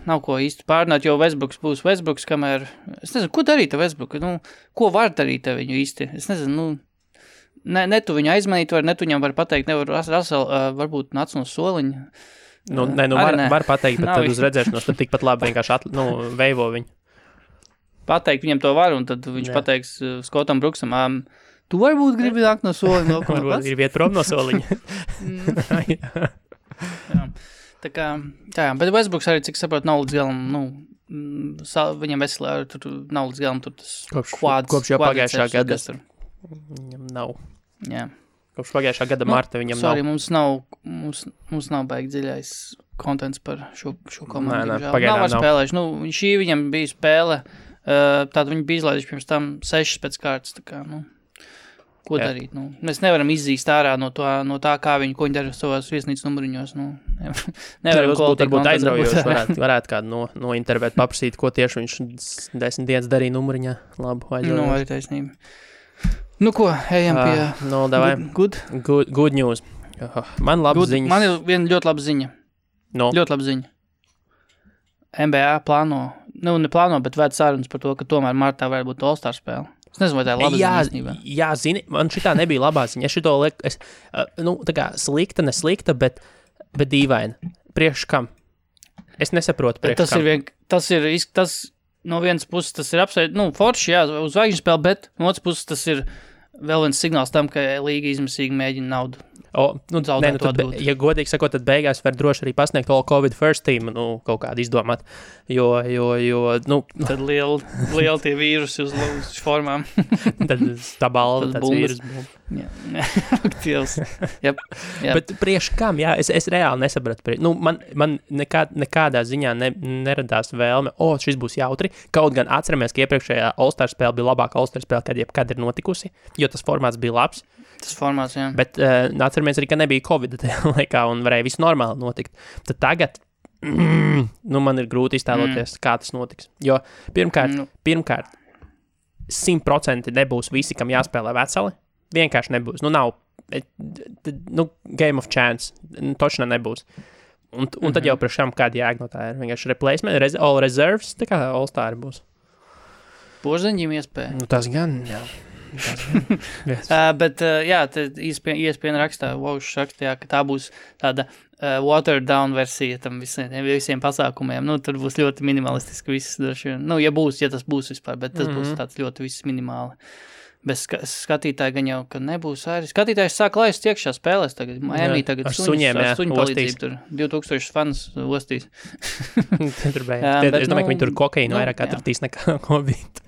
nav ko īsti pārnāt, jo Westbrooks būs Westbrooks, kamēr, es nezinu, ko darīt ar Westbrooku, ko var darīt ar viņu īsti, es nezinu, ne tu viņu aizmanīt var, ne tu viņam var pateikt, nevar Russell, varbūt nāc no soliņa. Var pateikt, bet tad uz redzēšanos tad tikpat labi vienkārši veivo viņu. Pateikt viņam to var, un tad viņš pateiks Skotam Bruksam, tu varbūt gribi nākt no soliņa. Varbūt gribi iet prom no soliņa. Tā kā, bet Westbrooks arī, cik saprot, nav līdz galam, viņam veselē, tur nav līdz galam, tur tas kopš jau pagājušā gada. Viņam nav. Jā. Kopš pagājušā gada marta viņam nav. Mums nav baigi dziļais kontents par šo komandu. Pagaidām nav. Spēlējuši. Šī viņam bija spēle, tāda viņi bija izlaiduši pirms tam 6 pēc kārtas, tā kā, ko darīt, Mēs nevaram izzīst ārā no tā, kā ko viņi dara savās viesnīcas numuriņos, Nevaram varbūt aizraujoši, varētu kādu nointervēt, paprasīt, ko tieši viņš 10 dienas darīja numuriņā. Labu, aizraujoši. Arī taisnība. Ko, ejam pie good news. Man labas ziņas. Man ir viena ļoti laba ziņa. Ļoti laba ziņa. NBA plāno, neplāno, bet vēd sarunas par to, ka tomēr martā varētu būt All-Star spēle. Es nezinu, vai tā ir laba ziņa īstenībā. Jā, zini, man šitā nebija labā ziņa. Es šito lieku, tā kā slikta, neslikta, bet dīvaina. Priekš kam? Es nesaprotu priekš kam. Tas no vienas puses tas ir forši, jā, uz zvaigžņu spēli, bet no otras puses tas ir vēl viens signāls tam, ka līga izmisīgi mēģina naudu. Ja godīgi sakot, tad beigās var droši arī pasniegt all COVID first team, kaut kādu izdomāt, jo Tad lieli tie vīrusi uz formām. Tad tā balva, tāds vīrus. Yep. Bet priekš kam, jā, es reāli nesapratu. Man nekādā ziņā neradās vēlme, šis būs jautri, kaut gan atceramies, ka iepriekšējā All-Star spēle bija labāka All-Star spēle, kad jebkad ir notikusi, jo tas formāts bija labs. Tas formāts, jā. Bet atceramies arī, ka nebija Covid tajā laikā un varēja viss normāli notikt. Tad tagad, man ir grūti iztēloties, kā tas notiks. Jo pirmkārt 100% nebūs visi, kam jāspēlē veseli. Vienkārši nebūs. Nav, game of chance. Točna nebūs. Un tad jau priekš kam kāda jēga no tā ir. Vienkārši replacement, all reserves, tā kā All-Star būs. Porziņģim iespēja. Tas gan, jā. Bet, jā, ESPN rakstā, ka tā būs tāda watered down versija tam visiem pasākumiem. Tur būs ļoti minimalistiski viss. Ja tas būs vispār, bet tas būs tāds ļoti viss minimāli. Bez skatītāji gan jau, ka nebūs arī. Skatītājs sāk laist iekšā spēlēs tagad. Miami tagad suņu palīdzību tur 2000 fans ostīs. Tur beidz. Es domāju, ka viņi tur kokainu vairāk atratīs nekā Covid.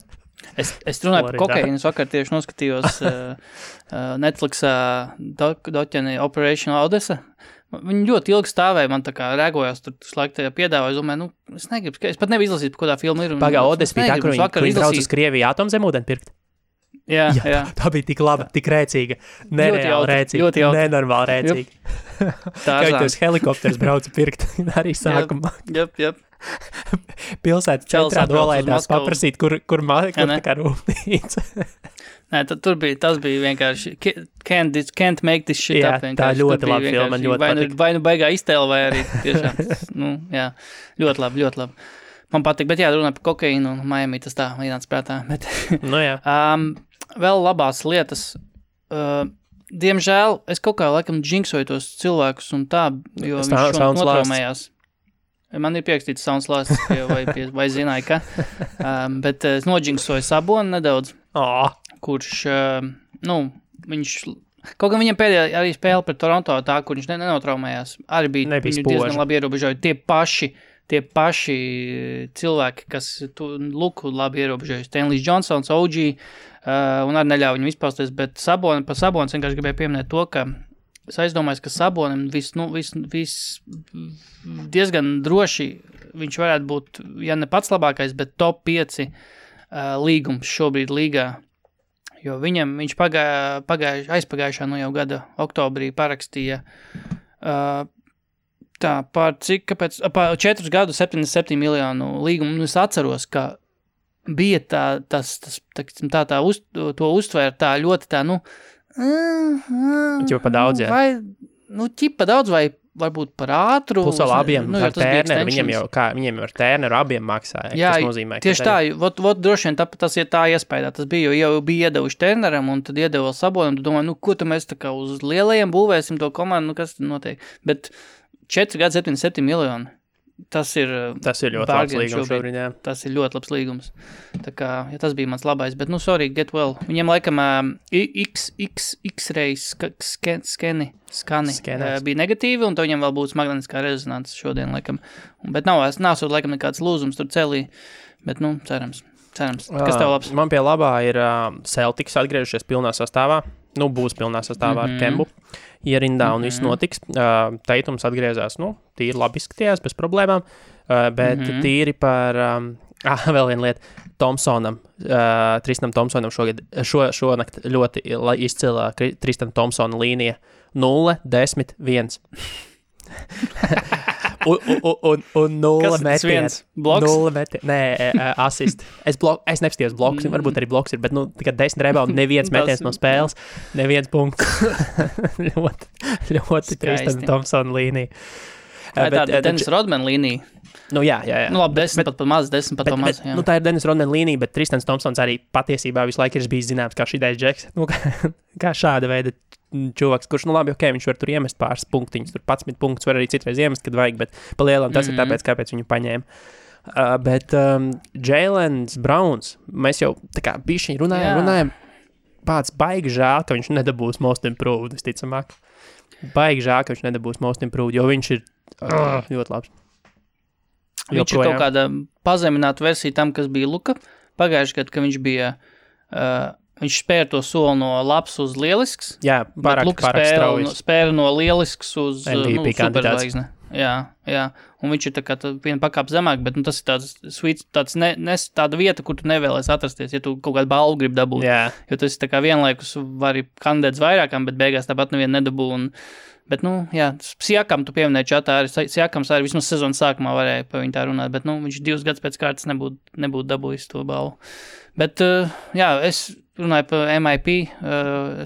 Es runāju par kokainu, es vakar tieši noskatījos Netflixā doķeni Operation Odessa. Viņi ļoti ilgi stāvēja, man tā kā rēgojās, tur laiku tajā piedāvāja, es domāju, es negribu, es pat nevaru izlasīt, par kādā filma ir. Pagā, Odessa bija tā, kur viņi brauc uz Krieviju atomzemūdeni pirkt. Jā. Tā bija tik laba, tik rēcīga, nereāli rēcīga, nenormāli rēcīga. Kā viņi tos helikopters brauca pirkt arī sākumā. Jep. Pilsētas centrā dolēdās paprasīt, kur tā kā rūpnīca. Nē, tas bija vienkārši can't make this shit up. Tā ļoti labi filma, man ļoti patīk. Vai baigā iztēle, vai arī tiešām, jā, ļoti labi. Man patīk, bet jā, runā par kokainu un Miami, tas tā ienāca prātā. Bet, jā. Vēl labās lietas. diemžēl, es kaut kā laikam džinksoju tos cilvēkus un tā, jo viņš šodien notraumējās. Man ir pierakstīts Sounds Last, vai zināju, ka, bet es nodžinksoju Sabonu nedaudz, kurš, viņš, kaut gan viņam pēdējā arī spēle pret Toronto tā, kur viņš nenotraumējās, arī bija diezgan labi ierobežoja. Tie paši cilvēki, kas Luku labi ierobežoja, Stanley Johnsons, OG, un arī neļauj viņam izpausties, bet par Sabonis vienkārši gribēju pieminēt to, ka es aizdomājos, ka Sabonim diezgan droši viņš varētu būt, ja ne pats labākais, bet top 5 līgums šobrīd līgā. Jo viņš aizpagājušā jau gada oktobrī parakstīja par 4 gadu 77 miljonu līgumu. Es atceros, ka bija to uztvēra tā ļoti tā, ķipa daudz, jā. Vai, ķipa daudz vai varbūt par ātru. Plus vēl abiem ar Tērneru, viņiem jau ar Tērneru abiem maksāja. Jā, tas nozīmē, tieši tā, droši vien tas ir tā iespējā, tas bija, jau bija iedevuši Tērneram un tad iedeva Sabonam, tu domā, ko tu mēs tā kā uz lielajiem būvēsim to komandu, kas tad notiek. Bet 4 gadu 77 miljoni. Tas ir ļoti labs līgums šobrīd, jā. Tas ir ļoti labs līgums. Tā kā, ja tas bija mans labais, bet, sorry, get well. Viņiem laikam X-ray skani bija negatīvi, un to viņam vēl būs magnetiskā rezonances šodien, laikam. Bet nav laikam nekāds lūzums tur celī, bet, cerams. Kas tev labs? Man pie labā ir Celtics atgriežušies pilnā sastāvā. Būs pilnā sastāvā ar Kembu ierindā un viss notiks. Teitums atgriezās, tīri labi izskatījās, bez problēmām, bet tīri par, vēl viena lieta, Thompsonam, Tristanam Thompsonam šonakt ļoti izcilā Tristan Thompsona līnija 0, 10, 1. un 0 metiens. Bloks? 0 metiens. Nē, asist. Es nepastījos bloks, varbūt arī bloks ir, bet tikai 10 rebound, neviens metiens no spēles, neviens punkts. ļoti Tristan Thompsona līnija. Tā ir Dennis Rodman līnija. Jā. Labi, 10 pat maz, 10 pat maz. Tā ir Dennis Rodman līnija, bet Tristans Thompsons arī patiesībā visu laiku ir bijis zināms kā šidais džeks. Kā šāda veida čuvaks, kurš, labi, viņš var tur iemest pāris punktiņus, tur 11 punktus var arī citreiz iemest, kad vajag, bet palielam tas ir tāpēc, kāpēc viņu paņēma. Bet Jailens Browns, mēs jau tā kā bišķiņ runājam, pats baigi žēl, ka viņš nedabūs most improved, visticamāk. Baigi žēl, ka viņš nedabūs most improved, jo viņš ir ļoti labs. Viņš ir kaut kāda pazemināta versija tam, kas bija Luka. Pagājuši gadu, ka viņš bija, viņš spēra to soli no labs uz lielisks. Jā, pārāk strauji. Spēra no lielisks uz MVP superzvaigzne. Jā. Un viņš ir tā kā viena pakāpe zemāk, bet tas ir tāds sweet, tāda vieta, kur tu nevēlies atrasties, ja tu kaut kādu balvu grib dabūt. Jā. Jo tas ir tā kā vienlaikus vari kandidēts vairākām, bet beigās tāpat nevienu nedabū. Bet, Siakam tu pieminēji čatā, arī Siakams arī vismaz sezonas sākumā varēja par viņu tā runāt, bet, viņš 2 gadus pēc kārtas nebūtu dabūjis to balvu. Bet, es runāju par MIP,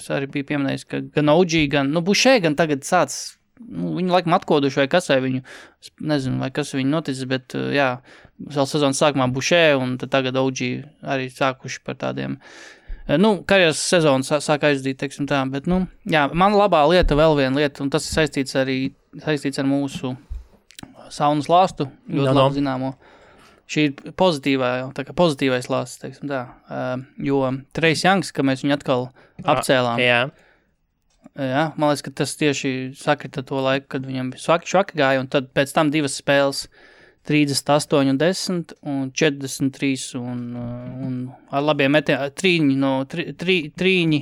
es arī biju pieminējis, ka gan OG, gan, Bušē, gan tagad sāc, viņu laikam atkoduši vai kas vai viņu, nezinu, vai kas viņu noticis, bet, vēl sezonas sākumā Bušē, un tad tagad OG arī sākuši par tādiem, karjeras sezonu sāk aizdīt, teiksim tā, bet, man labā lieta, vēl viena lieta, un tas ir saistīts ar mūsu saunas lāstu, ļoti labi zināmo. Šī ir pozitīvais lāsts, teiksim tā, jo Trejs Youngs, ka mēs viņu atkal apcēlām. Jā, man liekas, ka tas tieši sakrita to laiku, kad viņam švaki gāja, un tad pēc tam 2 spēles 38 un 10 un 43 un ar labiem metieniem, trīņi,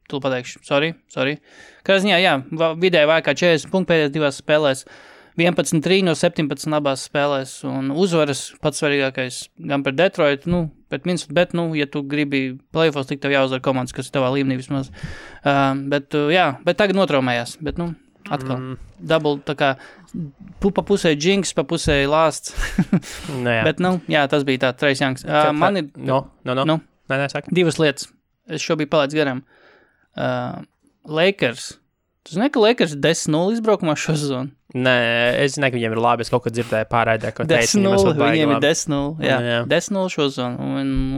tu pateikšu, sorry. Kā ziņā, vidēji vajag kā 40 punktu pēdējās 2 spēlēs, 11 trīņi no 17 abās spēlēs, un uzvaras pats svarīgākais gan par Detroit, pret Minnesota, bet, ja tu gribi playoffs, tik tev jāuzvar komandas, kas ir tavā līmenī vismaz. Bet tagad notraumējās, bet, atkal, double, tā kā, pa pusē Jinx, pa pusē Lāsts. Bet, tas bija tā, Trejs Youngs. Man ir... Nē, saka. 2 lietas. Es šo biju palaidis garām. Lakers Tu zini, ka Lakers 10-0 izbraukumā šo sezonu? Nē, es zinu, ka viņiem ir labi. Es kaut ko dzirdēju pārraidē, ko teica. 10-0, viņiem ir 10-0. Jā, 10-0 šo sezonu.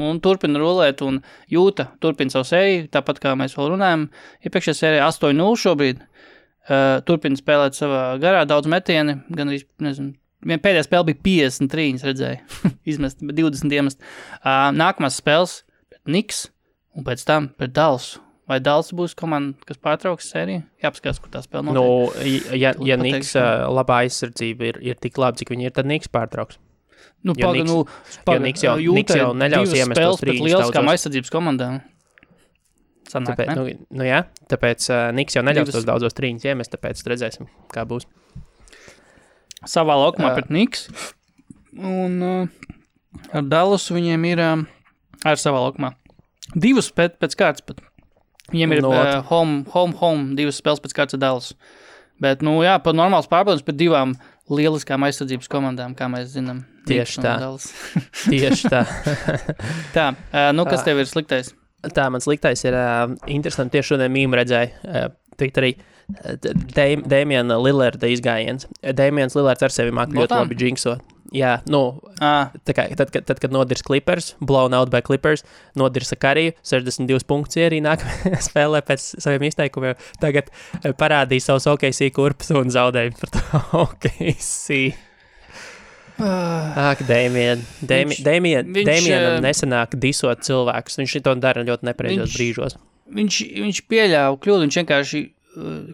Un turpina rulēt un jūta, turpina savu sēriju, tāpat kā mēs vēl runājam. Iepriekšējā sērijā 8-0 šobrīd. Turpina spēlēt savā garā daudz metieni, gan arī, nezinu, pēdējā spēle bija 53, redzēju, izmest, 20 iemest. Nākamās spēles pret Knicks un pēc tam pret Dallasu. Vai Dallas būs komanda, kas pārtrauks sēriju? Jāpaskatās, kur tā spēle notiek. Nu, ja Knicks labā aizsardzība ir tik labi, cik viņi ir, tad Knicks pārtrauks. Nu, Knicks jau neļaus iemest tos trīņus. Pret lieliskām aizsardzības komandām. Sanāk, tāpēc, jā, tāpēc Knicks jau neļaus tos daudzos trīņus iemest, tāpēc redzēsim, kā būs. Savā laukumā pret Knicks. Un ar Dallasu viņiem ir ar savā laukumā. Divas pēc kārtas pat. Viņiem ir home, divas spēles pēc kārtas Dallas. Bet, jā, par normāls pārbaudums pret divām lieliskām aizsardzības komandām, kā mēs zinām. Tieši tā. Tieši tā. Tā, kas tev ir sliktais? Tā, man sliktais ir interesanti, tieši šodien mīmu redzēju. Tikt arī Damiana Lillarda izgājiens. Damians Lillards ar sevi māk ļoti labi džinksot. Jā, tā kā, tad, kad nodirs Clippers, blown out by Clippers, nodirsa Kariju, 62 punktus arī nākamajā spēlē pēc saviem izteikumiem. Tagad parādīja savus OKC kurpus un zaudēja par to OKC. Damianam nesanāk disot cilvēkus. Viņš to dara ļoti nepareizos brīžos. Viņš pieļāva kļūdu, viņš vienkārši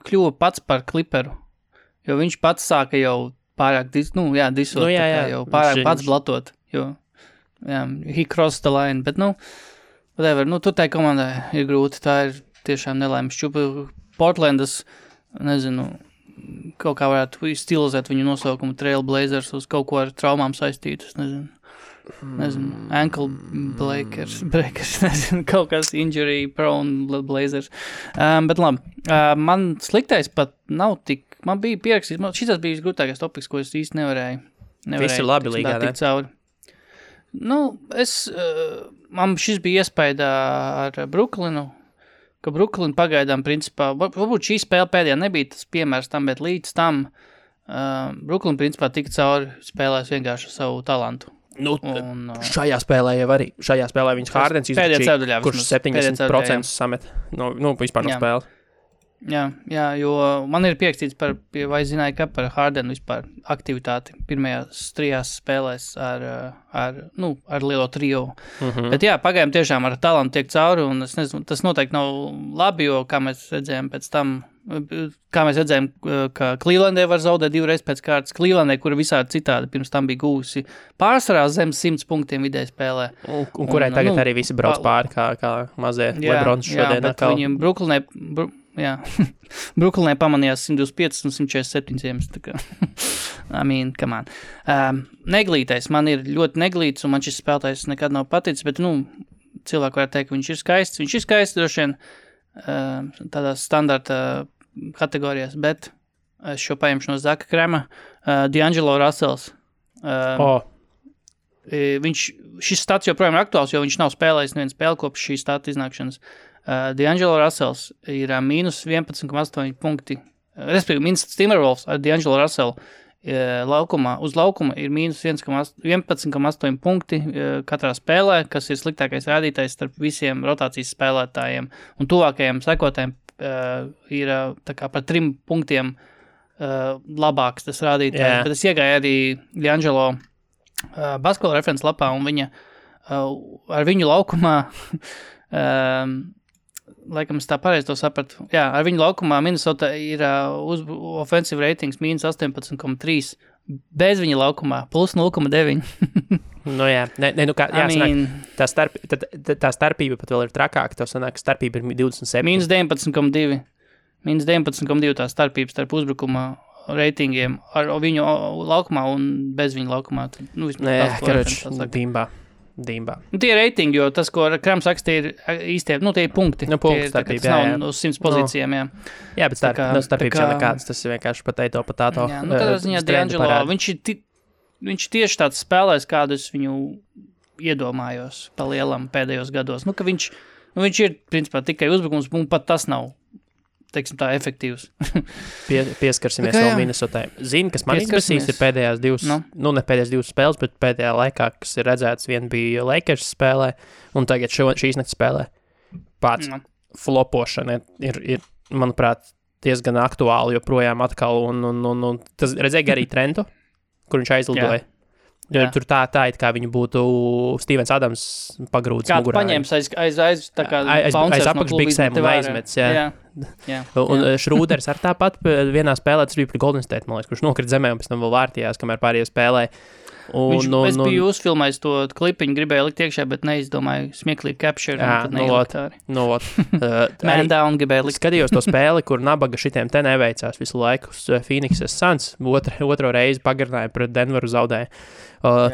kļuva pats par Clipperu, jo viņš pats sāka jau pārāk disot, jau pārāk pats blatot, jo, he crossed the line, bet, whatever, tur tai komandai ir grūti, tā ir tiešām nelaimes šķupa. Portlandas, nezinu, kaut kā varētu stilizēt viņu nosaukumu Trailblazers uz kaut ko ar traumām saistītus, nezinu, ankle breakers, nezinu, kaut kas injury prone Blazers. Bet labi, man sliktais pat nav tik, man bija pierakstīts, šis bija grūtākais topiks, ko es īsti nevarēju. Viss ir labi līgā, ne? Man šis bija iespējā ar Brooklynu, ka Brooklyn pagaidām principā, varbūt šī spēle pēdējā nebija tas piemērs tam, bet līdz tam Brooklyn principā tika cauri spēlēs vienkārši savu talantu. Šajā spēlē jau arī. Šajā spēlē viņas Hardens izračīja, kurš 70% samet vispār no spēles. Jā, jo man ir pierakstīts vai zināju, ka par Hardenu vispār aktivitāti pirmajās 3 spēlēs ar lielo trio. Bet jā, pagaidām tiešām ar talantu tiek cauri, un es nezinu, tas noteikti nav labi, jo kā mēs redzējām pēc tam, ka Clevelandē var zaudēt 2 reizes pēc kārtas. Clevelandē, kura visādi citādi pirms tam bija gūsi pārsvarā zem 100 punktiem vidēji spēlē. Un kurai tagad arī visi brauc pāri, kā mazie Lebrons šodien. Jā, bet viņiem Brooklynē pamanījās 125 un 147 iemes. Come on. Neglītais, man ir ļoti neglīts, un man šis spēlētājs nekad nav paticis, bet, cilvēki varētu teikt, ka viņš ir skaists. Viņš ir skaists, droši vien, tādās standarta kategorijās, bet es šo paņemšu no Zaka Krema. D'Angelo Russells. Šis stats joprojām ir aktuāls, jo viņš nav spēlējis nevienu spēli kopš šī stata iznākšanas. D'Angelo Russells ir mīnus 11,8 punkti. Respektīvi, Minnesota Timberwolves ar D'Angelo Russellu uz laukuma ir mīnus 11,8 punkti katrā spēlē, kas ir sliktākais rādītājs starp visiem rotācijas spēlētājiem. Un tuvākajiem sekotājiem ir tā kā par 3 punktiem labāks tas rādītājs. Bet es iegāju arī D'Angelo basketbola referents lapā, un viņa ar viņu laukumā laikam es tā pareizi to sapratu. Jā, ar viņu laukumā Minnesota ir offensive ratings mīnus 18,3, bez viņa laukumā plus 0,9. Tā starpība pat vēl ir trakāka, tev sanāk, ka starpība ir 27. Mīnus 19,2 tā starpība starp uzbrukuma ratingiem ar viņu laukumā un bez viņu laukumā. Dīmbā. Tie ir reitingi, jo tas, ko Krams raksta, ir īstie, tie ir punkti. Punkti starpība, tas nav uz 100 pozīcijām, jā. Jā, bet starpības jau nekāds, tas ir vienkārši potato. Jā, tādā ziņā D'Angelo, viņš tieši tāds spēlēs, kādus viņu iedomājos pa lielam pēdējos gados. Ka viņš ir, principā, tikai uzbrukums, un pat tas nav teiksim tā, efektīvs. Pieskarsimies vēl Minnesotai. Zini, kas man izbasīs ir pēdējās ne pēdējās 2 spēles, bet pēdējā laikā, kas ir redzēts, viena bija Lakers spēlē, un tagad šīs nakts spēlē. Pats flopošana ir, manuprāt, diezgan aktuāli joprojām atkal, un tas redzēja arī Trentu, kur viņš aizlidoja. Tur tā it kā viņu būtu Stevens Adams pagrūdis mugurā. Paņēmis aiz apakšbiksēm un aizmets, jā. Un Šrūders ar tāpat vienā spēlē, tas bija pret Golden State, man liekas, kurš nokrit zemē un pēc tam vēl vārtījās, kamēr pārējie spēlēja. Es biju uzfilmējis to klipiņu, gribēju likt iekšā, bet neizdomāju smieklīgi capture. Man down gribēju likt. Skatījos to spēli, kur nabaga šitiem te neveicās visu laiku. Phoenixes Suns otro reizi pagarināja pret Denveru zaudēja.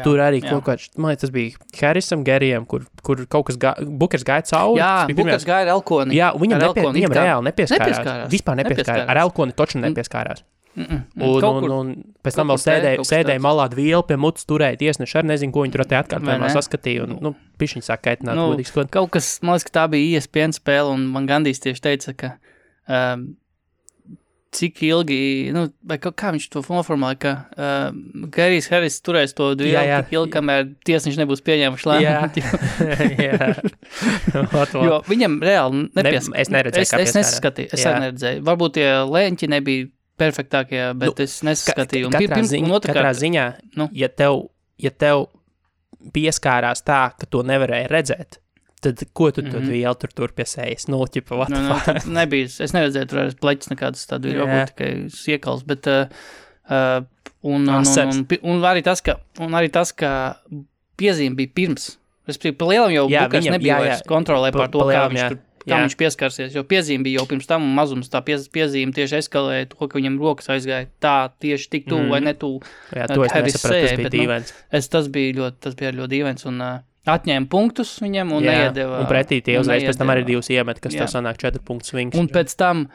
Tur arī kaut kāds, man liekas, tas bija Harrisam, Gerijam, kur kaut kas Bukers gāja cauri. Jā, Bukers gāja ar Elkoni. Jā, viņam reāli nepieskārās. Vispār nepieskārās. Ar Elkoni toču nepieskārās. Un pēc tam vēl sēdēja malā vielu pie mutas turēja tiesneši, arī nezinu, ko viņi tur atkārtojumā saskatīja, un, pišķiņ sāk kaitināt, godīgi skot. Kaut kas, man liekas, ka tā bija ESPN spēle, un man Gandijs tieši teica, ka cik ilgi, vai kā viņš to noformulēja, ka Gerijs Harris turēs to vielu tik ilgi, kamēr tiesneši nebūs pieņēmuši lēmumu. Jā. Jo viņam reāli nepieskārās. Es neredzēju, kā pieskārās. Es arī neredzēju. Varbūt tie lēņķi nebija perfektākie, bet es nesaskatīju. Katrā ziņā, ja tev pieskārās tā, ka to nevarēja redzēt, tad ko tu vielu tur pie sejas? Nebija, es neredzēju tur arī pleķis nekādas tādu, varbūt tikai siekals, bet un arī tas, ka piezīme bija pirms. Respektīvi, pa lielam jau Bukers nebija vairs kontrolē par to, kā viņš pieskarsies, jo piezīme bija jau pirms tam, un mazums tā piezīme tieši eskalēja to, ka viņam rokas aizgāja tā tieši tik tuvu vai netuvu. Jā, to es nesapratu, tas bija dīvains. Tas bija ļoti dīvains, un atņēma punktus viņam un neiedeva. Un pretī tie uzreiz pēc tam arī 2 iemet, kas tev sanāk 4 punktu swings. Un pēc tam,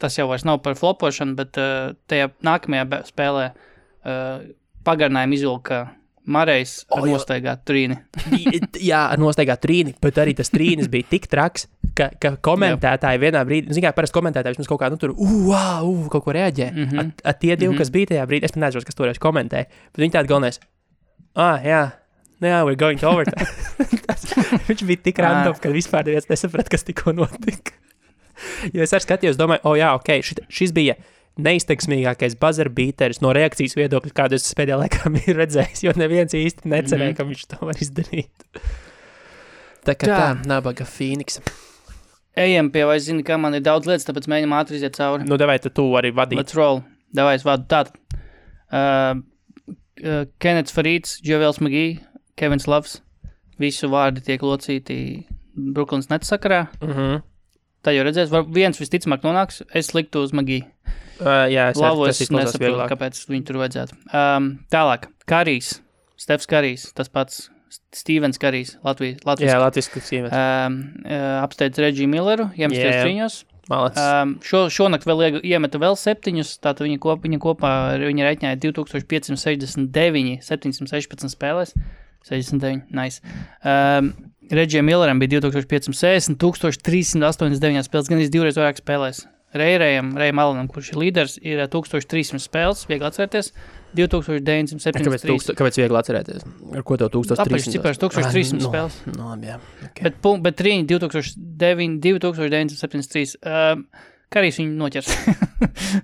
tas jau vairs nav par flopošanu, bet tajā nākamajā spēlē pagarinājuma izvilka Marejs ar nostaigātu trīni. Jā, ar nostaigātu trīni, bet arī tas trīnis bija tik traks, ka komentētāji vienā brīdī, zin kā, parasti komentētāji vismaz kaut kā, tur, kaut ko reaģē. Tie 2, kas bija tajā brīdī, es pat nezinu, kas toreiz komentēja, bet viņi tādi galvenais, we're going to overtime. Viņš bija tik random, ka vispār neviens nesaprat, kas tikko notika. Jo es arī skatījos, domāju, šis bija neizteiksmīgākais buzzer beateris no reakcijas viedokļa, kādu es pēdējā laikā biju redzējis, jo neviens īsti necerēja, ka viņš to var izdarīt. Tā kā tā, nabaga Phoenix. Ejam pie, vai zini, kā man ir daudz lietas, tāpēc mēģinam ātri iziet cauri. Davai, tu arī vadīt. Let's roll. Davai, es vadu. Tātad. Kennets Farīds, Džovels Magī, Kevins Loves. Visu vārdi tiek locīti Brooklyns Nets sakarā. Tā jau redzēs, viens visticamāk nonāks, es liktu uz Magī. Jā, es nesaprotu, kāpēc viņu tur vajadzētu. Tālāk, Karijs, Stefs Karijs, tas pats Stevens Karijs, Latvijas. Jā, Latvijas Stevens. Apsteidz Reggie Milleru, iemesties trīņos. Šonakt vēl iemeta vēl 7, tātad viņa kopā viņa reiķņāja 2569, 716 spēlēs, 69, nice. Reggie Milleram bija 2560, 1389 spēles, gan 2 reizes vairāk spēlēs. Rejam Alanam, kurš ir līderis, ir 1300 spēles, viegli atcerēties, 2973. Kāpēc viegli atcerēties? Ar ko tev 1300? Apaļš cipars, 1300 spēles. Jā. Okay. Bet trīņi 2973. Karijs viņu noķers.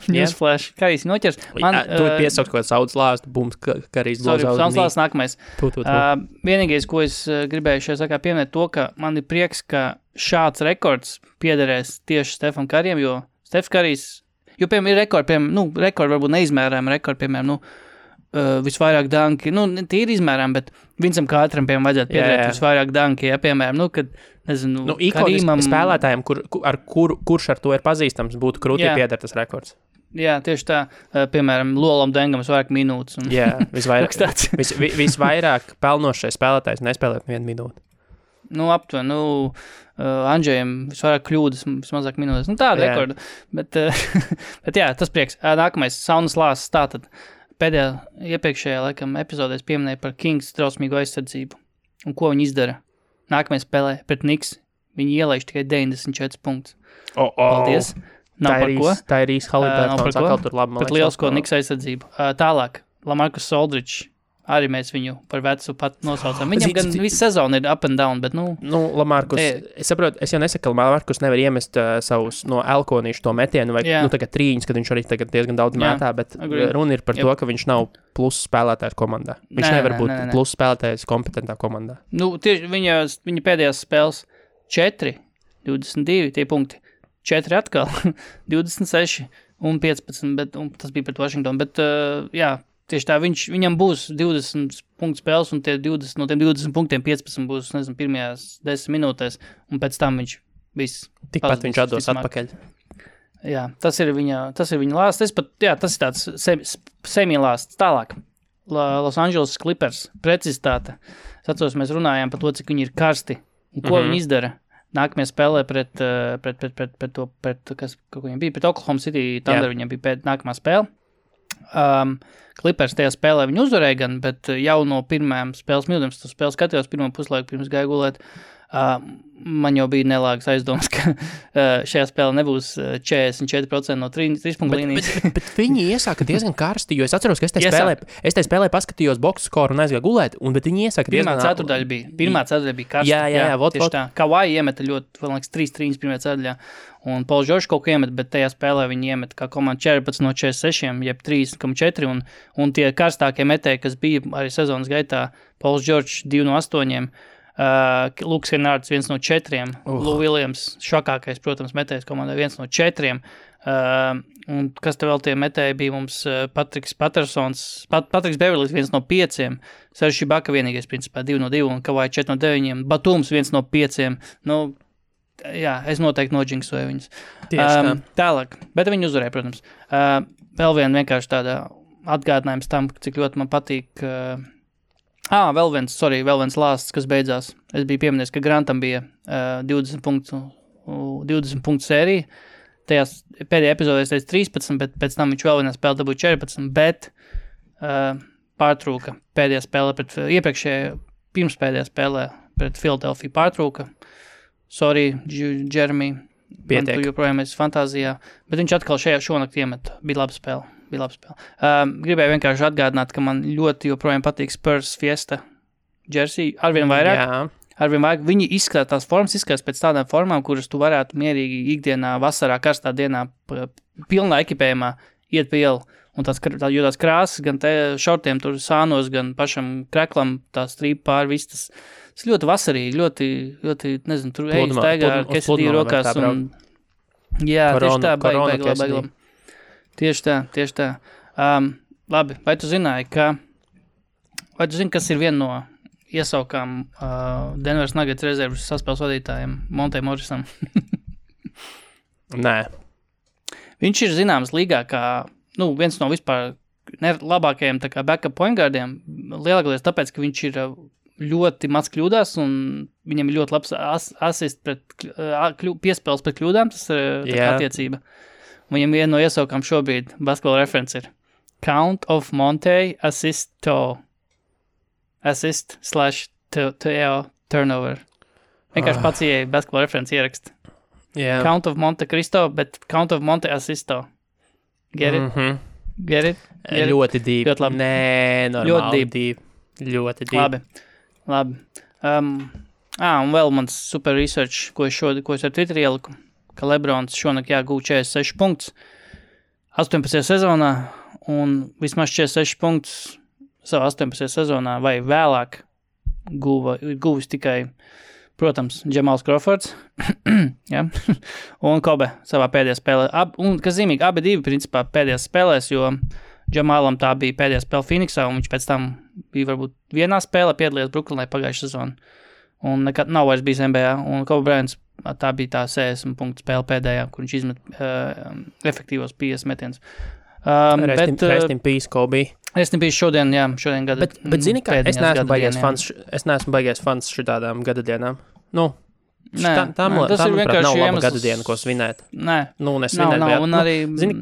Newsflash. Karijs viņu noķers. Tu piesauc kaut kāds saudas lāstu, bums, Karijs glozā uz saudas lāsts nākamais. Vienīgais, ko es gribēju šajā sakā pieminēt to, ka man ir prieks, ka šāds rekords piederēs tieši Stefam Karijam, jo Stefs Karijs, jo, piemēram, ir rekordi, rekordi varbūt neizmērām, piemēram, visvairāk danki, tie ir izmērām, bet Vincam Kātram, piemēram, vajadzētu piederēt visvairāk danki, piemēram, kad, nezinu, Karijam spēlētājiem, kurš ar to ir pazīstams, būtu krūtī pieder tas rekords. Jā, tieši tā, piemēram, Lolam Dengam vairāk minūtes. Jā, visvairāk pelnošais spēlētājs nespēlēt 1 minūti. Aptuveni, Andžejam visvairāk kļūdas, vismazāk minūtes. Tāda rekorda. Bet jā, tas prieks. Nākamais, saunas lāsts, tātad pēdējā iepriekšējā, laikam, epizodēs pieminēja par Kings drausmīgu aizsardzību un ko viņi izdara. Nākamais spēlē pret Knicks viņi ielaiž tikai 94 punktus. Paldies. Nav par ko. Tā ir īsti Haliburtons, atkal tur labi. Pat lielisko Niks aizsardzību. Tālāk, Lamarcus Aldridge. Arī mēs viņu par vecu pat nosaucam. Viņam gan visu sezonu ir up and down, bet Lamarcus, es saprotu, es jau nesaku, ka Lamarcus nevar iemest savus no elkonīšu to metienu, vai tagad trīņus, kad viņš arī tagad diezgan daudz mētā, bet runa ir par to, ka viņš nav plus spēlētājs komandā. Viņš nevar būt plus spēlētājs kompetentā komandā. Tieši viņa pēdējās spēles 4, 22 tie punkti, 4 atkal, 26 un 15, bet tas bija pret Washington, bet tieši tā, viņam būs 20 punktu spēles, un no tiem 20 punktiem 15 būs, nezinu, pirmajās 10 minūtēs, un pēc tam viņš viss. Tikpat viņš atdos atpakaļ. Jā, tas ir viņa lāsts. Tas ir tāds semi-lāsts. Tālāk. Los Angeles Clippers, precizitāte. Es atceros, mēs runājām par to, cik viņi ir karsti, un ko viņi izdara. Nākamajā spēlē pret Oklahoma City Thunder, viņam bija nākamā spēle. Clippers tajā spēlē viņu uzvarēja gan, bet jau no pirmajām spēles minūtēm, tu spēles skatījos pirmo puslaiku pirms gāju gulēt, man jau bija nelāgas aizdomas, ka šajā spēlē nebūs 44% no 3 punktu līnijas. Bet viņi iesāka diezgan karsti, jo es atceros, ka es tajā spēlē paskatījos boxu skoru un aizgāju gulēt, bet viņi iesāka diezgan... Pirmā ceturdaļa bija karsta. Jā, tieši tā. Kawhi iemeta ļoti, vēl liekas, 3 trīņas pirmajā ceturdaļā, un Pauls Džordžs kaut ko iemet, bet tajā spēlē viņi iemet kā komanda 14 no 46, jeb 3,4, un tie karstākie metēji, kas bija arī sezonas gaitā, Pauls Džordžs 2 no 8, Lukas Henārds 1 no 4, Lou Williams švakākais, protams, metējs komandai 1 no 4, un kas te vēl tie metēji bija mums Patriks Beverlijs 1 no 5, Serge Ibaka vienīgais principā 2 no 2, un Kawhi 4 no 9, Batums 1 no 5, jā, es noteikti noģinksoju viņus. Tālāk, bet viņi uzvarēja, protams. Vēl vienkārši tāda atgādinājums tam, cik ļoti man patīk vēl viens lāsts, kas beidzās. Es biju pieminējis, ka Grantam bija 20 punktu sērija. Tajās pēdējā epizodē es teicu 13, bet pēc tam viņš vēl vienā spēlē dabūja 14, bet pārtrūka pēdējā spēlē pirmspēdējā spēlē pret Philadelphia pārtrūka. Sorry, Jeremy, man tu joprojām esi fantāzijā, bet viņš atkal šonakt iemet. Bija laba spēle. Gribēju vienkārši atgādināt, ka man ļoti joprojām patīk Spurs Fiesta jersey, arvien vairāk. Viņi izskatās pēc tādām formām, kuras tu varētu mierīgi ikdienā, vasarā, karstā dienā, pilnā ekipējumā iet pa ielu. Un tās krāsas, gan te šortiem tur sānos, gan pašam kreklam, tā strīpa pār viss, tas ļoti vasarīgi, ļoti, nezinu, tur ejas taigā ar kesidīju rokās. Jā, tieši tā, baigi. Tieši tā. Labi, vai tu zini, kas ir viena no iesaukām Denveras Nuggets rezervas saspēles vadītājiem Monte Morrisam? Nē. Viņš ir zināms līgā kā, viens no vispār labākajiem tā kā backup point guardiem, lielākoties tāpēc, ka viņš ir ļoti maz kļūdās un viņam ir ļoti labs asist piespēles pret kļūdām, tas ir attiecība. Viņam viena no iesaukām šobrīd Basketball Reference ir Count of Monte Assist/Teo turnover. Vienkārši pats ieeja Basketball Reference ierakst. Yeah. Count of Monte Cristo, bet Count of Monte Assisto. Get it? Mm-hmm. Get it? Ļoti deep. Ļoti labi. Nē, normāli deep. Ļoti deep. Labi. Un vēl mans super research, ko es ar Twitter ieliku, ka Lebrons šonakt gūv 46 punktus 18. sezonā un vismaz 46 punktus savā 18. sezonā vai vēlāk guvis tikai, protams, Jamals Crawfords ja? Un Kobe savā pēdējā spēlē. Un, kas zīmīgi, abi divi principā pēdējās spēlēs, jo Jamalam tā bija pēdējā spēle Phoenixā un viņš pēc tam bija varbūt vienā spēlē piedalījies Brooklynā pagājušā sezonu. Un nekad nav vairs bijis NBA, un Kobe Bryants tā bija tā 60 punktu spēle pēdējā, kur viņš izmet efektīvos 50 metienus. Rest in peace, Kobe. Rest in peace šodien gada. Bet zini, kā es neesmu baigies fans šitādām gadadienām. Tam ir vienkārši nav laba gadadiena, ko svinēt. Nē. Nesvinēt. Nav, un arī... Zini?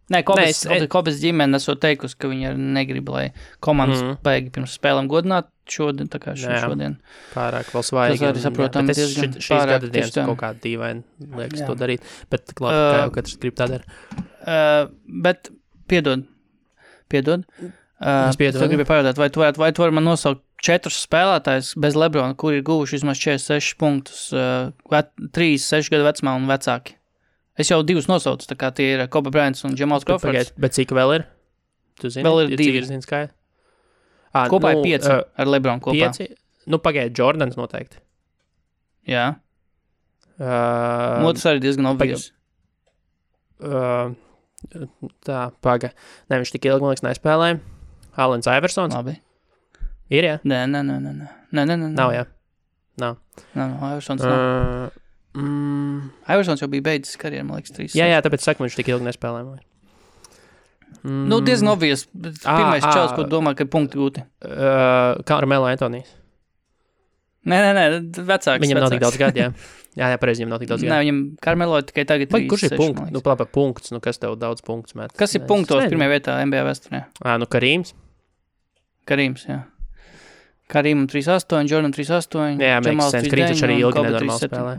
Nē, Kobes ģimene esot teikusi, ka viņi negrib, lai komandas baigi pirms spēlēm godināt šodien, tā kā šodien. Pārāk vēl svaigi. Tas arī saprotam diezgan šīs gada dienas kaut kāda dīvaini liekas to darīt, bet labi, kā jau katrs grib tā dara. Bet, piedod. Es gribēju pajautāt, vai tu vari man nosaukt 4 spēlētājus bez LeBrona, kuri ir guvuši vismaz 46 punktus, 36 gadu vecumā un vecāki? Es jau 2 nosaucu, tā kā tie ir Kobe Bryants un Jamals Crawfords. Bet cik vēl ir? Tu zini? Vēl ir 2. Cik ir zini skaidri? Kopā ir 5 ar LeBronu kopā. 5? Nu, pagaid, Jordans noteikti. Jā. Otrs arī diezgan obvious. Tā, paga. Ne, viņš tik ilgi, man liekas, nespēlēja. Alens Iversons. Labi. Ir, jā? Nē. Nav, jā. Nav. Iversons nav. Iversons jau bija beidzis karjeru, man liekas, 3. Jā, tāpēc saku, viņš tik ilgi nespēlēja. Nu, diezgan obvious. Pirmais čels, ko domā, ka ir punkti gūti. Carmelo Antonijs. Nē, vecāks. Viņam nav tik daudz gadu, jā. Jā, pareizi, viņam nav tik daudz gadu. Nē, viņam Carmelo tikai tagad 36. Kurš ir punkts? Nu, plāpā punkts, nu, kas tev daudz punktus met? Kas ir punktos pirmajā vietā NBA vēsturē? Nu, Karīms, jā. Karīmam 3-8, Jordan 3-8. Jā, makes sense. Karīms taču arī ilgi nenormāli spēlē.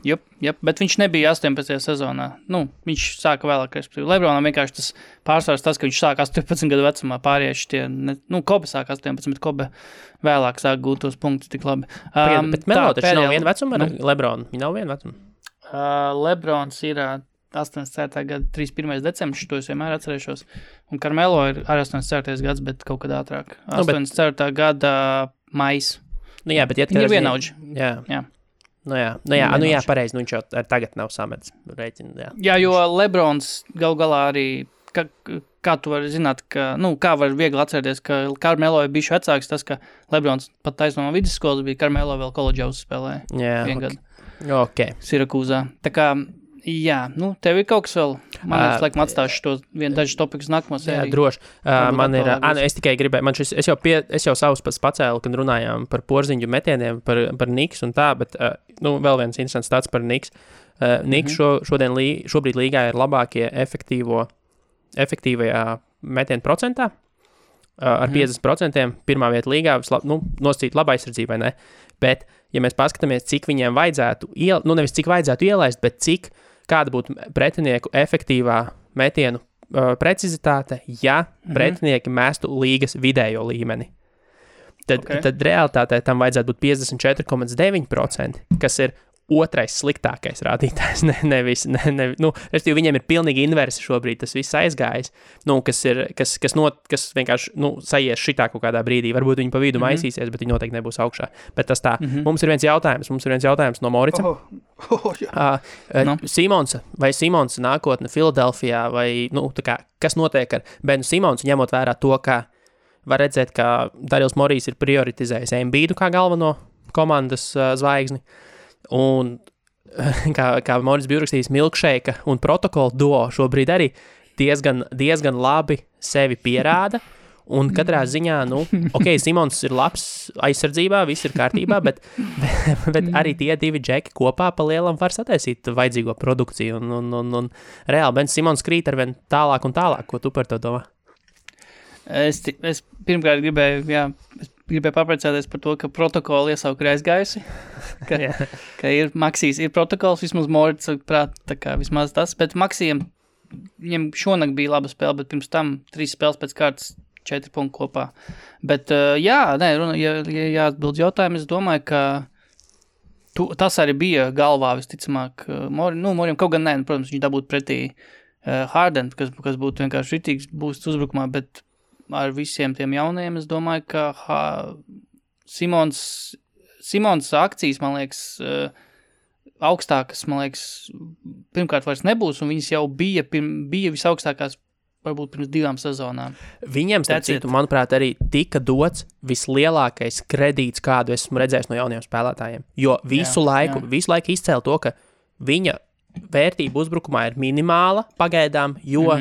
Jop, bet viņš nebija 18. sezonā. Nu, viņš sāka vēlāk, respektīvi. LeBronam vienkārši tas pārsvars tas, ka viņš sāka 18 gadu vecumā, pārieši tie, Kobe sāka 18, bet Kobe vēlāk sāka gūt tos punktus tik labi. Bet Melo taču nav viena vecuma ar LeBronu? Viņa nav viena vecuma? LeBrons ir 84. gada 31. decembris, to es vienmēr atcerēšos. Un Carmelo ir arī 84. gads, bet kaut kad ātrāk. 84. gada mais. Nu jā, bet viņi ir vienaudži. Jā. Nu jā, pareizi, viņš jau tagad nav samets rēķinu, Jā, jo LeBrons gal galā arī, kā tu vari zināt, kā var viegli atcerēties, ka Carmelo ir bijuši vecāks, tas, ka LeBrons pat taisno no vidusskolas bija, Carmelo vēl koledžā uzspēlēja. Jā, gadu. Sirakūzā. Tā kā, jā, tev ir kaut kas vēl. Man laikam atstāšu to dažus topikus nākamo sēriju. Jā, droši. Man ir, es tikai gribēju, es jau savus pats pacēlu, kad runājām par porziņu metieniem, par Niks un tā, bet, vēl viens interesants tāds par Niks. Niks šobrīd līgā ir labākie efektīvajā metienu procentā, ar 50%, pirmā vieta līgā, nosacīt laba aizsardzībai, ne? Bet, ja mēs paskatāmies, cik viņiem vajadzētu, nevis cik vajadzētu ielaist, bet kāda būtu pretinieku efektīvā metienu precizitāte, ja pretinieki mestu līgas vidējo līmeni. Tad realitātē tam vajadzētu būt 54,9%, kas ir otrais sliktākais rādītājs. Respektīvi, viņiem ir pilnīgi inversi šobrīd, tas viss aizgājis, kas vienkārši, sajies šitā kaut kādā brīdī. Varbūt viņi pa vidu maisīsies, bet viņi noteikti nebūs augšā. Bet tas tā. Mums ir viens jautājums no Morica. Simons nākotne Filadelfijā, vai, kas notiek ar Benu Simonsu, ņemot vērā to, ka var redzēt, ka Darils Morijs ir prioritizējis Embiidu kā galveno komandas zvaigzni. Un kā Moris bija uzrakstījis, milkšeika un protokolu duo šobrīd arī diezgan labi sevi pierāda. Un katrā ziņā, Simons ir labs aizsardzībā, viss ir kārtībā, bet arī tie divi džeki kopā pa lielam var sataisīt vajadzīgo produkciju. Un reāli Ben Simons krīt arvien tālāk un tālāk. Ko tu par to domā? Es pirmkārt gribēju papriecāties par to, ka protokoli iesauka ir aizgājusi, ka ir Maksijs, ir protokols, vismaz Morits prāt, tā kā vismaz tas, bet Maksijam, viņam šonakt bija laba spēle, bet pirms tam 3 spēles pēc kārtas 4 punkti kopā. Bet, ja atbild jautājumu, es domāju, ka tas arī bija galvā visticamāk Morim, kaut gan protams, viņš dabūtu pretī Harden, kas būtu vienkārši ritīgs būsts uzbrukumā, bet ar visiem tiem jaunajiem, es domāju, ka Simons akcijas, man liekas, augstākas, man liekas, pirmkārt vairs nebūs, un viņas jau bija visaugstākās, varbūt pirms 2 sezonām. Viņiem, starp citu, manuprāt, arī tika dots vislielākais kredīts, kādu esmu redzējis no jauniem spēlētājiem, jo visu laiku izcēla to, ka viņa vērtība uzbrukumā ir minimāla pagaidām, jo,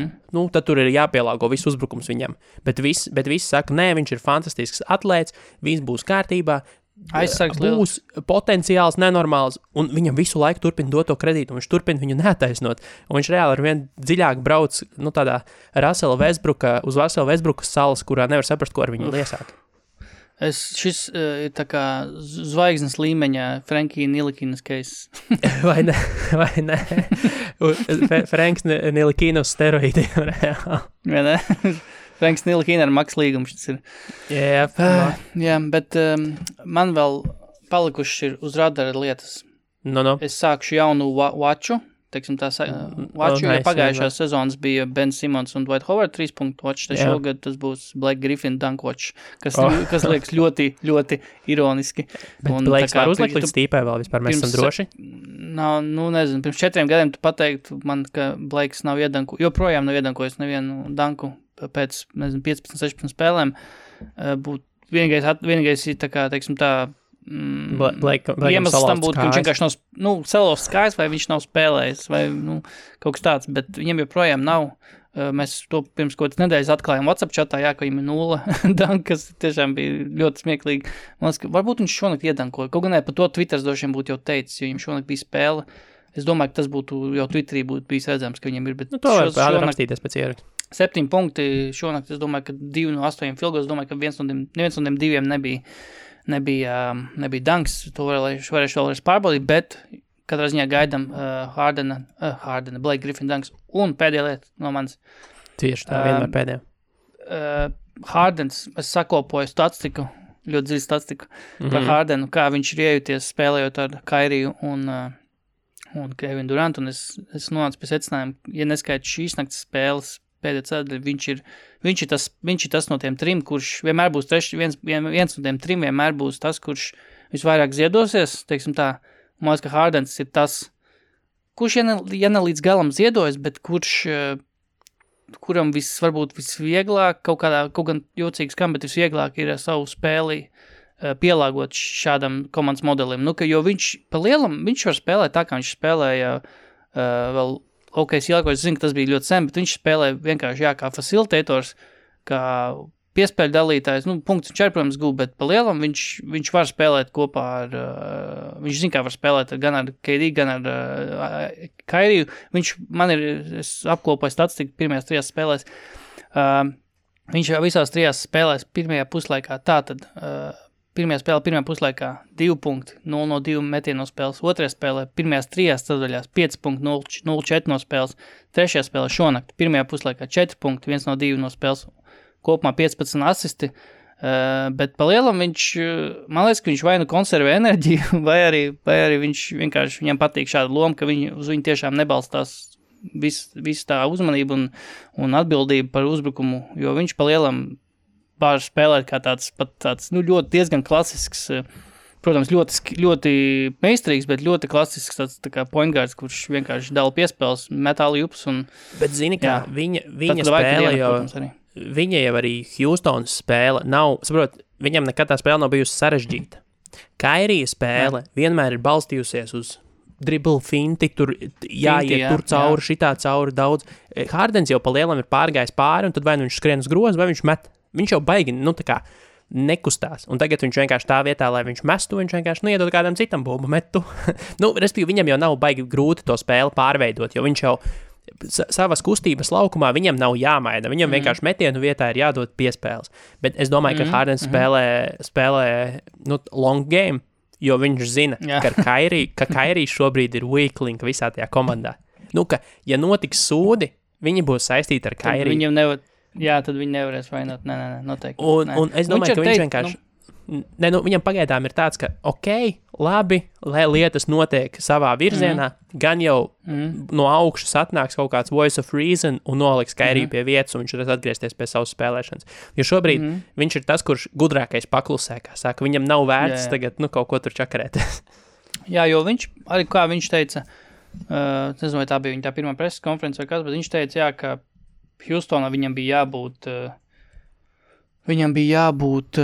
tad tur ir jāpielāgo viss uzbrukums viņam. Bet viss saka, nē, viņš ir fantastisks atlēts, viss būs kārtībā, būs potenciāls nenormāls, un viņam visu laiku turpina dot to kredītu, un viņš turpina viņu neataisnot. Un viņš reāli ar vien dziļāk brauc, tādā uz Russella Westbrooka salas, kurā nevar saprast, ko ar viņu liesāt. Šis ir tā kā zvaigznes līmeņa Frankija Nilikinas case. vai ne? Franks Nilikinas steroīdiem reāli. Vai ne? Franks Nilikina ar maks līgumu šis ir. Jā, bet man vēl palikuši ir uz radara lietas. No. Es sākšu jaunu watchu, teiksim tā, watchu, jo pagājušās sezonas bija Ben Simmons un Dwight Howard 3-punktu watch, tad šogad tas būs Blake Griffin dunk watch, kas liekas ļoti, ļoti ironiski. Bet Blakes var uzlikt līdz stīpē vēl vispār, mēs esam droši? Nav, nezinu, pirms 4 gadiem tu pateiktu man, ka Blakes nav joprojām nav iedankojis nevienu danku pēc, 15-16 spēlēm. Vienīgais ir tā kā, teiksim tā, iemesls tam būtu, ka viņš vienkārši nav salauzt kājas, vai viņš nav spēlējis, vai kaut kas tāds, bet viņam joprojām nav. Mēs to pirms kaut kādas nedēļas atklājām WhatsApp chatā, ka viņam ir 0 dank, kas tiešām bija ļoti smieklīgi. Man liekas, ka varbūt viņš šonakt iedankoja. Kaut gan par to Twitters došiem būtu jau teicis, jo viņam šonakt bija spēle. Es domāju, ka tas būtu jau Twitterī būtu bijis redzams, ka viņam ir, bet to var rakstīties pēc ieraksta. 7 punkti šonakt, es domāju, ka 2 no 8 filgos, domāju, ka neviens no tiem 2 nebija danks, to varēšu vēlreiz pārbaudīt, bet katrā ziņā gaidam Hardena, Blake Griffin danks. Un pēdējā lieta no manis. Tieši tā, vienmēr pēdējā. Hardens, es sakopoju statistiku, ļoti dziļu statistiku par Hardenu, kā viņš ir iejuties spēlējot ar Kairiju un Kevin Durant, un es nonācu pie secinājuma, ja neskait šīs naktas spēles pēdējā ceļa, viņš ir tas no tiem 3, kurš vienmēr būs viens no tiem 3 vienmēr būs tas, kurš visvairāk ziedosies, teiksim tā, man liekas, ka Hardens ir tas, kurš, ja ne līdz galam ziedojas, bet kuram varbūt visvieglāk, kaut gan jocīgs kam, bet visvieglāk ir savu spēli pielāgot šādam komandas modelim. Jo viņš pa lielam, viņš var spēlēt tā, kā viņš spēlēja vēl es zinu, ka tas bija ļoti sen, bet viņš spēlē vienkārši, kā facilitators, kā piespēļu dalītājs, punkts viņš arī, protams, gūb, bet pa lielam viņš var spēlēt kopā ar, viņš zina, kā var spēlēt gan ar KD, gan ar Kairiju. Es apkopoju statistiku pirmajās 3 spēlēs. Viņš visās 3 spēlēs pirmajā puslaikā, tātad pirmajā puslaikā 2 punkti, 0 no 2 metienu no spēles, otrajā spēlē pirmajās 3 ceturdaļās 5 punkti, 0-4 no spēles, trešajā spēlē šonakt, pirmajā puslaikā 4 punkti, 1 no 2 no spēles, kopumā 15 asisti, bet pa lielam man liekas, ka viņš vai konservē enerģiju, vai arī viņš vienkārši, viņam patīk šāda loma, ka uz viņu tiešām nebalstās visu tā uzmanību un atbildību par uzbrukumu, jo viņš pa lielam var spēlēt kā tāds ļoti diezgan klasisks, protams, ļoti meistarīgs, bet ļoti klasisks tāds tā kā point guards, kurš vienkārši dala piespēles, metāli jups un... Bet zini, kā viņa spēle jau... Viņa jau arī Houstonas spēle nav... Saprot, viņam nekad tā spēle nav bijusi sarežģīta. Kairija spēle vienmēr ir balstījusies uz dribble finti, tur jāiet tur cauri, šitā cauri daudz. Hardens jau pa lielam ir pārgājis pāri, un tad vai viņš skrien uz grozu, vai viņš met. Viņš jau baigi, tā kā nekustās. Un tagad viņš vienkārši tā vietā, lai viņš mestu, viņš vienkārši iedod kādam citam bumbu metu. Respektīvi, viņam jau nav baigi grūti to spēli pārveidot, jo viņš jau savas kustības laukumā viņam nav jāmaina. Viņam vienkārši metienu vietā ir jādod piespēles. Bet es domāju, ka Hardens spēlē long game, jo viņš zina, ka Kairī šobrīd ir weak link visā tajā komandā. Ka, ja notiks sūdi, viņi būs saistīti ar Kairī. Viņam tad viņi nevarēs vainot. Nē, noteikti. Un es domāju, ka viņš vienkārši... viņam pagaidām ir tāds, ka labi, lai lietas notiek savā virzienā, gan jau no augšas atnāks kaut kāds voice of reason un noliks Kairiju pie vietas, un viņš varēs atgriezties pie savas spēlēšanas. Jo šobrīd viņš ir tas, kurš gudrākais paklusē, kā saka, viņam nav vērts tagad kaut ko tur čakarēties. Jā, jo viņš, arī kā viņš teica, nezinu, vai tā bija viņa tā pirmā preses konference vai kas, bet viņš teica, ka Houstonā viņam bija jābūt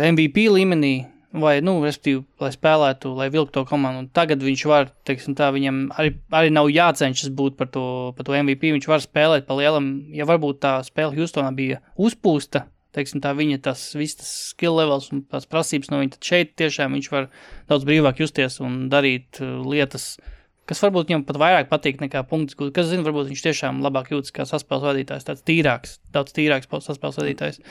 MVP līmenī, vai, respektīvi, lai spēlētu, lai vilktu to komandu. Un tagad viņš var, teiksim tā, viņam arī nav jācenšas būt par to MVP, viņš var spēlēt pa lielam, ja varbūt tā spēle Houstonā bija uzpūsta, teiksim tā, viņa tas skill levels un tās prasības no viņa, tad šeit tiešām viņš var daudz brīvāk justies un darīt lietas kas varbūt viņam pat vairāk patīk nekā punktus, kas zina, varbūt viņš tiešām labāk jūtas kā saspēles vadītājs, tāds daudz tīrāks saspēles vadītājs.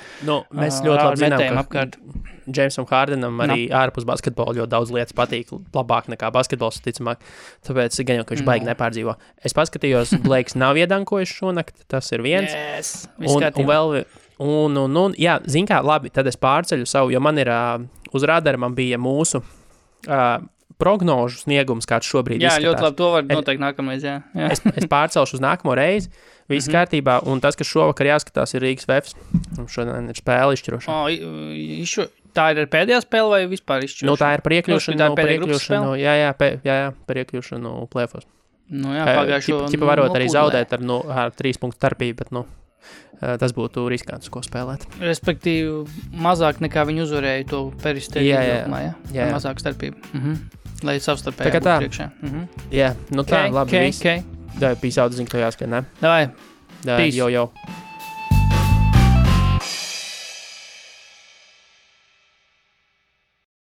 Mēs ļoti labi zinām, ka apkārt. Jamesam Hardenam arī ārpus basketbola ļoti daudz lietas patīk labāk nekā basketbols, ticamāk, tāpēc gan jau, ka viņš baigi nepārdzīvo. Es paskatījos, Blakes nav iedankojis šonakt, tas ir viens. Yes, jā, zin kā, labi, tad es pārceļu savu, jo man ir uz radara man bija mūsu prognožu sniegums, kāds šobrīd izskatās. Jā, ļoti labi, to var noteikti nākamreiz, jā. Es pārcelšu uz nākamo reizi, viss kārtībā, un tas, kas šovakar jāskatās, ir Rīgas Vefs. Šodien ir spēle izšķirošana. Tā ir pēdējā spēle vai vispār izšķirošana? Tā ir par iekļūšanu, par iekļūšanu plēfos. Pagājušo... Ķipa varot arī zaudēt ar 3 punktu starpību, bet, tas būtu riskants, ko spēlēt. Respektīvi, mazāk nekā viņi uzvarēja to peristēju. Jā. Mazāk starpību. Lai savstarpēji būtu priekšā. Jā, tā, labi, viss. Peace out, zinu, ka jāskat, ne? Davai. Peace. Jau.